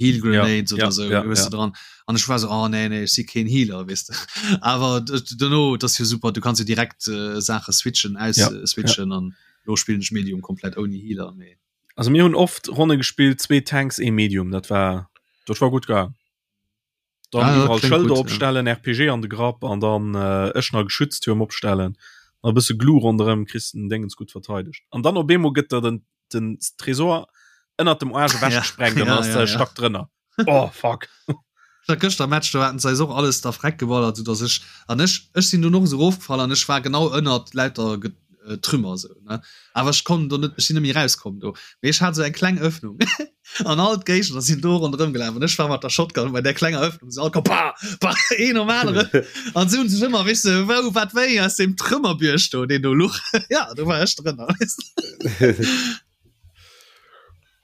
Speaker 3: Heal Grenades ja, oder ja, so ja, ja. dran an ich war so oh, nee, nee, ich si keen Healer weißt du awer duerno das jo super du kannst jo direkt äh, Sache switchen aus ja, äh, switchen an ja. lo spielen ich Medium komplett ohne Healer
Speaker 2: nee. Also mir hunn oft Ronne gespielt zwee Tanks e Medium dat war dat war gut gegangen. Dann ah, iwwerall Schëlder opstellen, ja. RPG an de Grapp an dann äh, Eschner Geschütztürm opstellen. A bësse Glu ronderëm kriss den Dingens gut verteidegt. An dann op eemol gëtt der den, den Tresor ënnert dem Arsch ewech ja. gesprengt ja, an ass ja, ja. Stack drënner. Oh fuck.
Speaker 3: Dat gëschter Match do haten se eis och alles da freck geballert, sou dass ech an ech ech sinn dunn och esou erofgefall an ech war genau ënnert lauter äh, Trümmer sou ne. Awer ech konnt do net ech sinn net méi rauskomm do. Mee ech hat sou eng kleng Öffnung an all d'Géigner sinn do ronderëm gelaf an ech war mat der Shotgun bei där klenger Öffnung se all komm pa pa een nom aneren an se hunn sech ëmmer weess de wou wat wéi aus deem Trümmerbierg do deen do luch ja do war ech drënner weess de.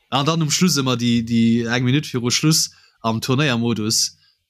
Speaker 3: An dann um Schluss ëmmer déi déi eng Minutt viru Schluss am Turnéiermodus.